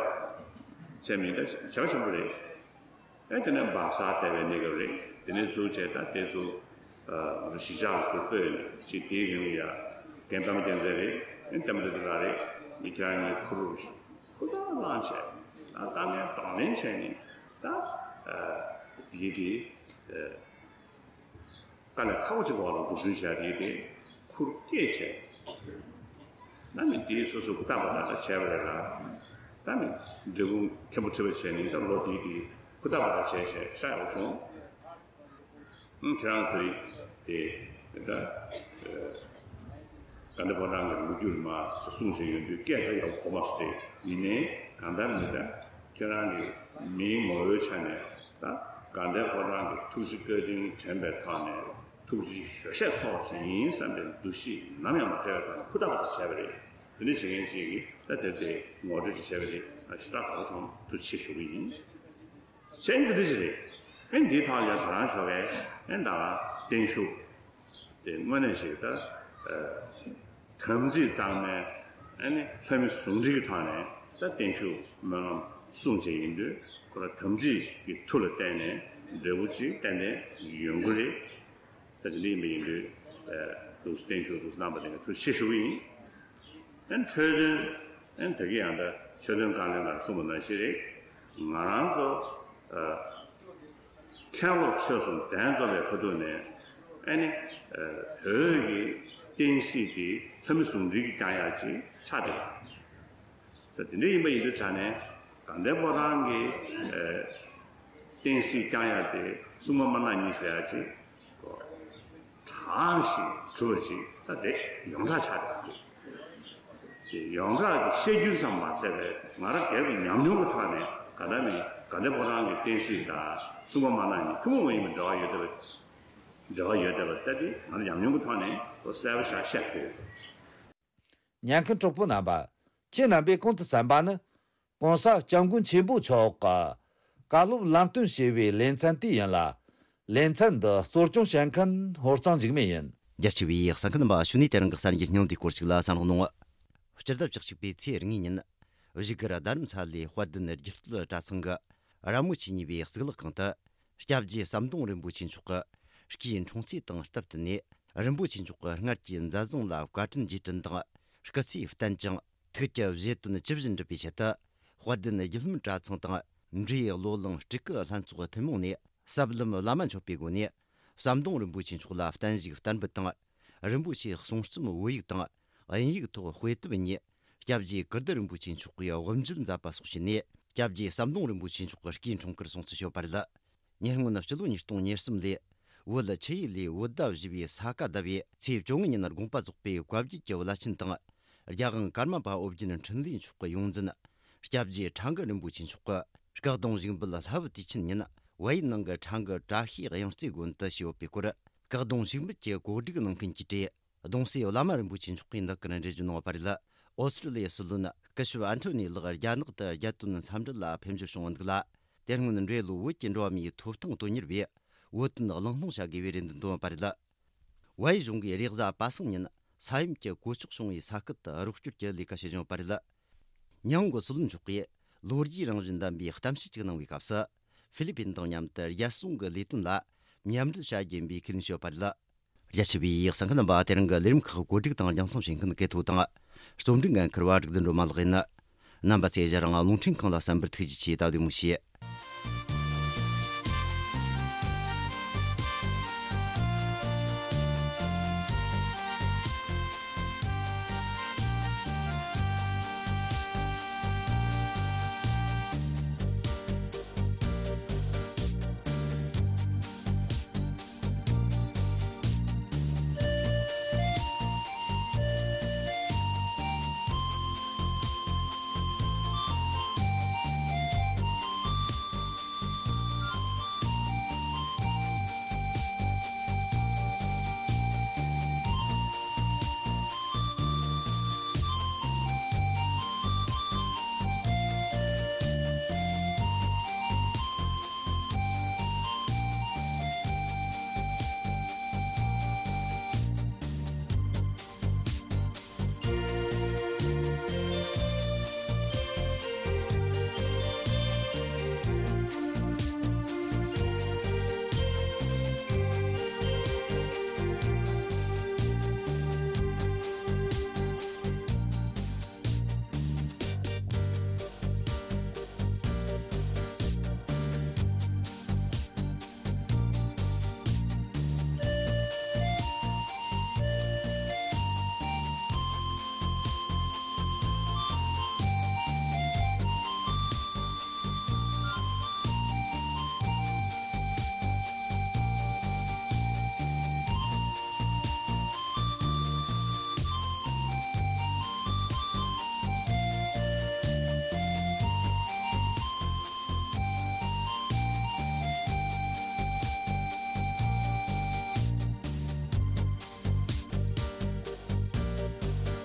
ཚད་མིན་ད་བྱ་བ་ཆེན་པོ་རེད། ཨེ་དེ་ནས་སྦག་སར་བསྡད་པའི་གནས་སྐབས་རེད། དེ་ནས་ཚུར་བྱས་ད་དེ་ཚུར་ཨ་ང་ཚོ་གཞིས་ཆགས་ལ་ཚུར་སྤོས་ནས་ཅིག་དེའི་རིང་ལ་ཡ་རྒན་པདྨ་རྒྱལ་མཚན་རེད། ཨེ་བསྟན་པ་བདེ་ཆེན་ལགས་རེད། མི་ཁྱེད་རང་གཉིས་ཁུར་ཁུར་ཐག་བླངས་བྱས། ད་དཀའ་ངལ་གདོང་ལེན་བྱས་ནས་ད་ཨ་དེའི་དེ་ཨ། དཀའ་ལས་ཁག་པོ་ཅིག་འོག་ལ་འཛུགས་སྐྲུན་བྱས་དེ་དེ་ཁུར་བསྐྱེད་བྱས། ད་ནི་དེའི་སོ་སོ་ཧུར་ཐག་པ་ཐག་བྱས་པ་རེད་ལ། ད་ནི་འབྲས་སྤུངས་མཁན་པོ་ཁྲི་པ་བྱས་ནས་ད་ལོ་དེའི་དེ་ཧུར་ཐག་པ་ཐག་བྱས་བྱས་ཤ་ཡག་པོ་བྱུང་། ཨང་ཁྱེད་རང་དེ་དེ་ད་དགའ་ལྡན་ཕོ་བྲང་གི་ལོ་རྒྱུས་མ་ཞིག་གསུངས་བཞིན་ཡོད་དུས་སྐད་ད་ཡག་པོ་གོ་མ་སོང་སྟེ། ཡིན་ནའི་གང་ལྟར་མི་ད་ཁྱེད་རང་གི་མིའི་ངོ་བོའི་ཆ་ནས་ད་དགའ་ལྡན་ཕོ་བྲང་གི་ཐུགས་རྗེ་བཀའ་དྲིན་དྲན་པའི་ཐོག་ནས། ཐུགས་རྗེ་ཆེ་ཞུ་ཞེས་སོགས་ཞིག་ཡིན་བསམ་པའི་འདུ་ཤེས་ནམ་ཡང་མ་བྲལ་བའི་ཐོག་ནས་ཧུར་ཐག་པ་ཐག་བྱས་པ་རེད། དེ་འདྲ་བྱེད་མཁན་ཅིག་གིས་ད་དེར་དེ་ངོ་སྤྲོད་ཅིག་བྱས་པ་རེད། ཞེ་དྲག་དགའ་པོ་བྱུང་། ཐུགས་རྗེ་ཆེ་ཞུ་གི་ཡིན། ཅན་དེ་འདྲ་ཞིག་རེད། ཨེ་འདིའི་ཐོག་ལ་ཡང་དེ་རང་ཞོགས་པའི་ཨེ་ད་བརྟན་བཞུགས་དེ་དངོས་གནས་ཞིག་ད་དམ་ཚིག་གཙང་མའི་ཨེ་ནི་ལྷ་མི་ཟུང་འབྲེལ་གྱི་ཐོག་ནས་ད་བརྟན་བཞུགས་སྨོན་ལམ་གསུངས་བྱས་ཡིན་དུས་ཁོ་ར་དམ་ཚིག་གི་མཐུ་ལ་བརྟེན་ནས་འབྲས་བུ་ཅིག་ཏན་ཏན་ཡོང་གི་རེད། ད་དེ་འདྲ་ཡིན་པ་ཡིན་དུས་ཨེ་འདུག་བརྟན་བཞུགས་འདུག་རྣམ་པ་དེ་ག་ཐུགས་རྗེ་ཆེ་ཞུ་གི་ཡིན། ཨན་འཕྲོས་དོན། ཨན་ད་གི་ཡང་ད་ཆོས་དོན་བཀའ་བློན་ལ་གསུངས་པ་ནང་བཞིན་རེད། ང་རང་ཚོ་ཨ་མཁན་སློབ་ཆོས་གསུམ་གདན་འཛོམས་པའི་ཁ་ཐུག་ནས་ཨ་ནི་ཨ་བོད་ཀྱི་བསྟན་སྲིད་དེ་ལྷ་མི་ཟུང་འབྲེལ་གྱིས་བསྐྱང་ཡག་ཅིག་ཆགས་བསྡད་པ། ས་དེ་འདྲ་ཡིན་པ་ཡིན་དུས་ཙང་ནས་དགའ་ལྡན་ཕོ་བྲང་གི་ཨ་བསྟན་སྲིད་བསྐྱང་ཡག་དེ་སྲུང་མ་དམར་ནག་གཉིས་ཟེར་ཡག་ཅིག་གོ། དྲང་ཞིང་གྲུབ་པ་ཅིག་ད་དེ་ཡོངས་གྲགས་ཆགས་ཡོད་པ་ཅིག་དེ་ཡོངས་གྲགས་ཀྱི་བཤད་རྒྱུན་ཙམ་མ་ཟད་པའི་ང་རང་སྒེར་གྱི་ཉམས་མྱོང་གི་ཐོག་ནས་ག་ད་ནི་དགའ་ལྡན་ཕོ་བྲང་གི་བསྟན་སྲིད་དང་སྲུང་མ་དམར་ནག་གཉིས་ཐུན་མོང་མ་ཡིན་པའི་འབྲེལ་བ་ཡོད་བསྡད་པ། འབྲེལ་བ་ཡོད་བསྡད་པ་ད་དེ་ང་རང་ཉམས་མྱོང་གི་ཐོག་ནས་གསལ་པོ་ཞིག་བཤད་ཐུབ་ཡོད། ཉན་མཁན་གྲོགས་པོ་རྣམ་པ། ཁྱེད་རྣམ་པས་གོང་དུ་གསན་པ་ནི། ༸གོང་ས་༸སྐྱབས་མགོན་ཆེན་པོ་མཆོག་གི་བཀའ་སློབ་ལམ་སྟོན་ཞེས་པའི་ལེ་ཚན་དེ་ཡིན་ལ། ལེ་ཚན་འདི་གཙོ་སྐྱོང་བྱེད་མཁན་ཧོར་གཙང་འཇིགས་མེད་ཡིན། རྒྱ་ཆེ་བའི་གསན་མཁན་རྣམ་པ། ཕྱི་ནས་དེ་རིང་གི་གསར་འགྱུར་སྙིང་བསྡུས་སྐོར་ཞིག་ལ་གསན་རོགས་གནང་། སྤྱི་ཟླ་བཅུ་གཅིག་པའི་ཚེས་གཉིས་ཉིན། བཞུགས་སྒར་རྡ་རམ་ས་ལའི་དཔལ་ལྡན་རྒྱུད་སྟོད་གྲྭ་ཚང་གི་ར་མོ་ཆོས་གཉིས་པའི་གཙུག་ལག་ཁང་དུ། སྐྱབས་རྗེ་ཟམ་གདོང་རིན་པོ་ཆེ་མཆོག་གི་སྐུའི་འཁྲུངས་ཚེས་དང་སྟབས་བསྟུན་ནས། རིན་པོ་ཆེ་མཆོག་གི་སྔར་གྱི་མཛད་བཟང་ལ་བཀའ་དྲིན་རྗེས་དྲན་དང་། སྐུ་ཚེ་བརྟན་ཅིང་། ཐུགས་ཀྱི་བཞེད་དོན་ཇི་བཞིན་འགྲུབ་པའི་ཆེད་དུ། དཔལ་ལྡན་རྒྱུད་ལམ་གྲྭ་ཚང་དང་། འབྲས་བློ་གླིང་སྤྲུལ་སྐུ་ལྷན་ཚོགས་ཐུན་མོང་ནས། ཟབ་ལམ་བླ་མ་མཆོད་པའི་སྒོ་ནས། ཟམ་གདོང་རིན་པོ་ཆེ་མཆོག་ལ་བརྟན་བཞུགས་བསྟར་འབུལ་དང་། རིན་པོ་ཆེའི་གསུང་རྩོམ་བོད་ཡིག་དང་། དབྱིན་ཡིག་ཐོག་དཔེ་དེབ་གཉིས། སྐྱབས་རྗེ་ཀིརྟི་རིན་པོ་ཆེ་མཆོག་གིས་དབུ་འབྱེད་མཛད་པ་སོགས་བྱས་ནས། སྐྱབས་རྗེ་ཟམ་གདོང་རིན་པོ་ཆེ་མཆོག་གི་སྐུའི་འཁྲུངས་སྐར་སྲུང་བརྩི་ཞུས་པ་རེད། ཉེ་སྔོན་སྤྱི་ལོ་ཉིས་སྟོང་ཉེར་གསུམ་ལོའི་བོད་ཆུ་ཡུལ་ལས་བོད་ཟླ་བཞི་པའི་ས་ག་ཟླ་བའི་ཚེས་བཅོ་ལྔ་ཉིན་དགོངས་པ་རྫོགས་པའི་བཀའ་བརྒྱུད་ཀྱི་བླ་ཆེན་དང་། རྒྱལ་དབང་ཀརྨ་པ་ཨོ་རྒྱན་འཕྲིན་ལས་མཆོག་གི་ཡོངས་འཛིན། སྐྱབས་རྗེ་ཁྲ་འགུ་རིན་པོ་ཆེ་མཆོག་གིས་སྐུ་གདུང་བཞུགས་འབུལ་ལྷ་བུ་དུས་ཆེན་ཉིན་བལ་ཡུལ་ནང་གི་ཁྲ་འགུ་བཀྲ་ཤིས་དབྱངས་རྩེ་དགོན་དུ་ཞུས་ཡོད་པའི་སྐོར། སྐུ་གདུང་བཞུགས་འབུལ་གྱི་གོ་སྒྲིག་གནང་མཁན་གྱིས་བྲིས། གདུང་སྲས་བླ་མ་རིན་པོ་ཆེ་མཆོག་གིས་འདི་སྐར་འགྲེལ་བརྗོད་གནང་བ་རེད། ཨོ་སི་ཀྲི་ལི་ཡའི་སྲིད་བློན་སྐུ་ཞབས་ཨན་ཐོ་ནི་ལགས་རྒྱ་ནག་ཏུ་རྒྱལ་དོན་འཚམས་འདྲི་ལ་ཕེབས་འབྱོར་བྱུང་བ་འདུག་ལ། དེ་སྔོན་འགྲོ་བའི་ལོ་བོད་ཀྱི་འགྲོ་བ་མིའི་ཐོབ་ཐང་དོན་གཉེར་བས་བོད་དོན་གླེང་སློང་བྱ་དགོས་པའི་རེ་འདུན་བཏོན་པ་རེད། བལ་ཡུལ་གཞུང་གིས་རེས་གཟའ་པ་སངས་ཉིན་ས་ཡོམ་གྱི་གོད་ཆག་བྱུང་བའི་ས་ཁུལ་དུ་རོགས་སྐྱོར་གྱི་ལས་ཀ་བྱེད་བཞིན་ཡོད་པ་རེད། ཉི་ཧོང་གི་སྲིད་བློན་མཆོག་གིས་ལོ་རྒྱུས་རང་བཞིན་ལྡན་པའི་གཏམ་བཤད་ཅིག་གནང་བའི་སྐབས་སུ། ཧྥི་ལི་པིན་དང་མཉམ་དུ་རྒྱལ་སྲུང་གི་ལས་དོན་ལ་མཉམ་འབྲེལ་བྱ་རྒྱུ་ཡིན་པའི་ཁས་ལེན་བྱས་ཡོད་པ་རེད། རྒྱ་ཆེ་བའི་གསན་མཁན་རྣམ་པ། དེ་རིང་གི་ལས་རིམ་ཁག་གོ་སྒྲིག་དང་རྒྱང་སྲིང་བྱེད་མཁན་གལ་ཐོ་དང་། རྩོམ་སྒྲིག་འགན་འཁུར་བ་སྒྲིག་འདུན་སྒྲོལ་མ་ལགས་ཡིན། རྣམ་པ་ཚོས་ཞལ་རང་རླུང་འཕྲིན་ཁང་ལ་གསན་པར་ཐུགས་རྗེ་ཆེ། ད་བདེ་མོ་བྱོས།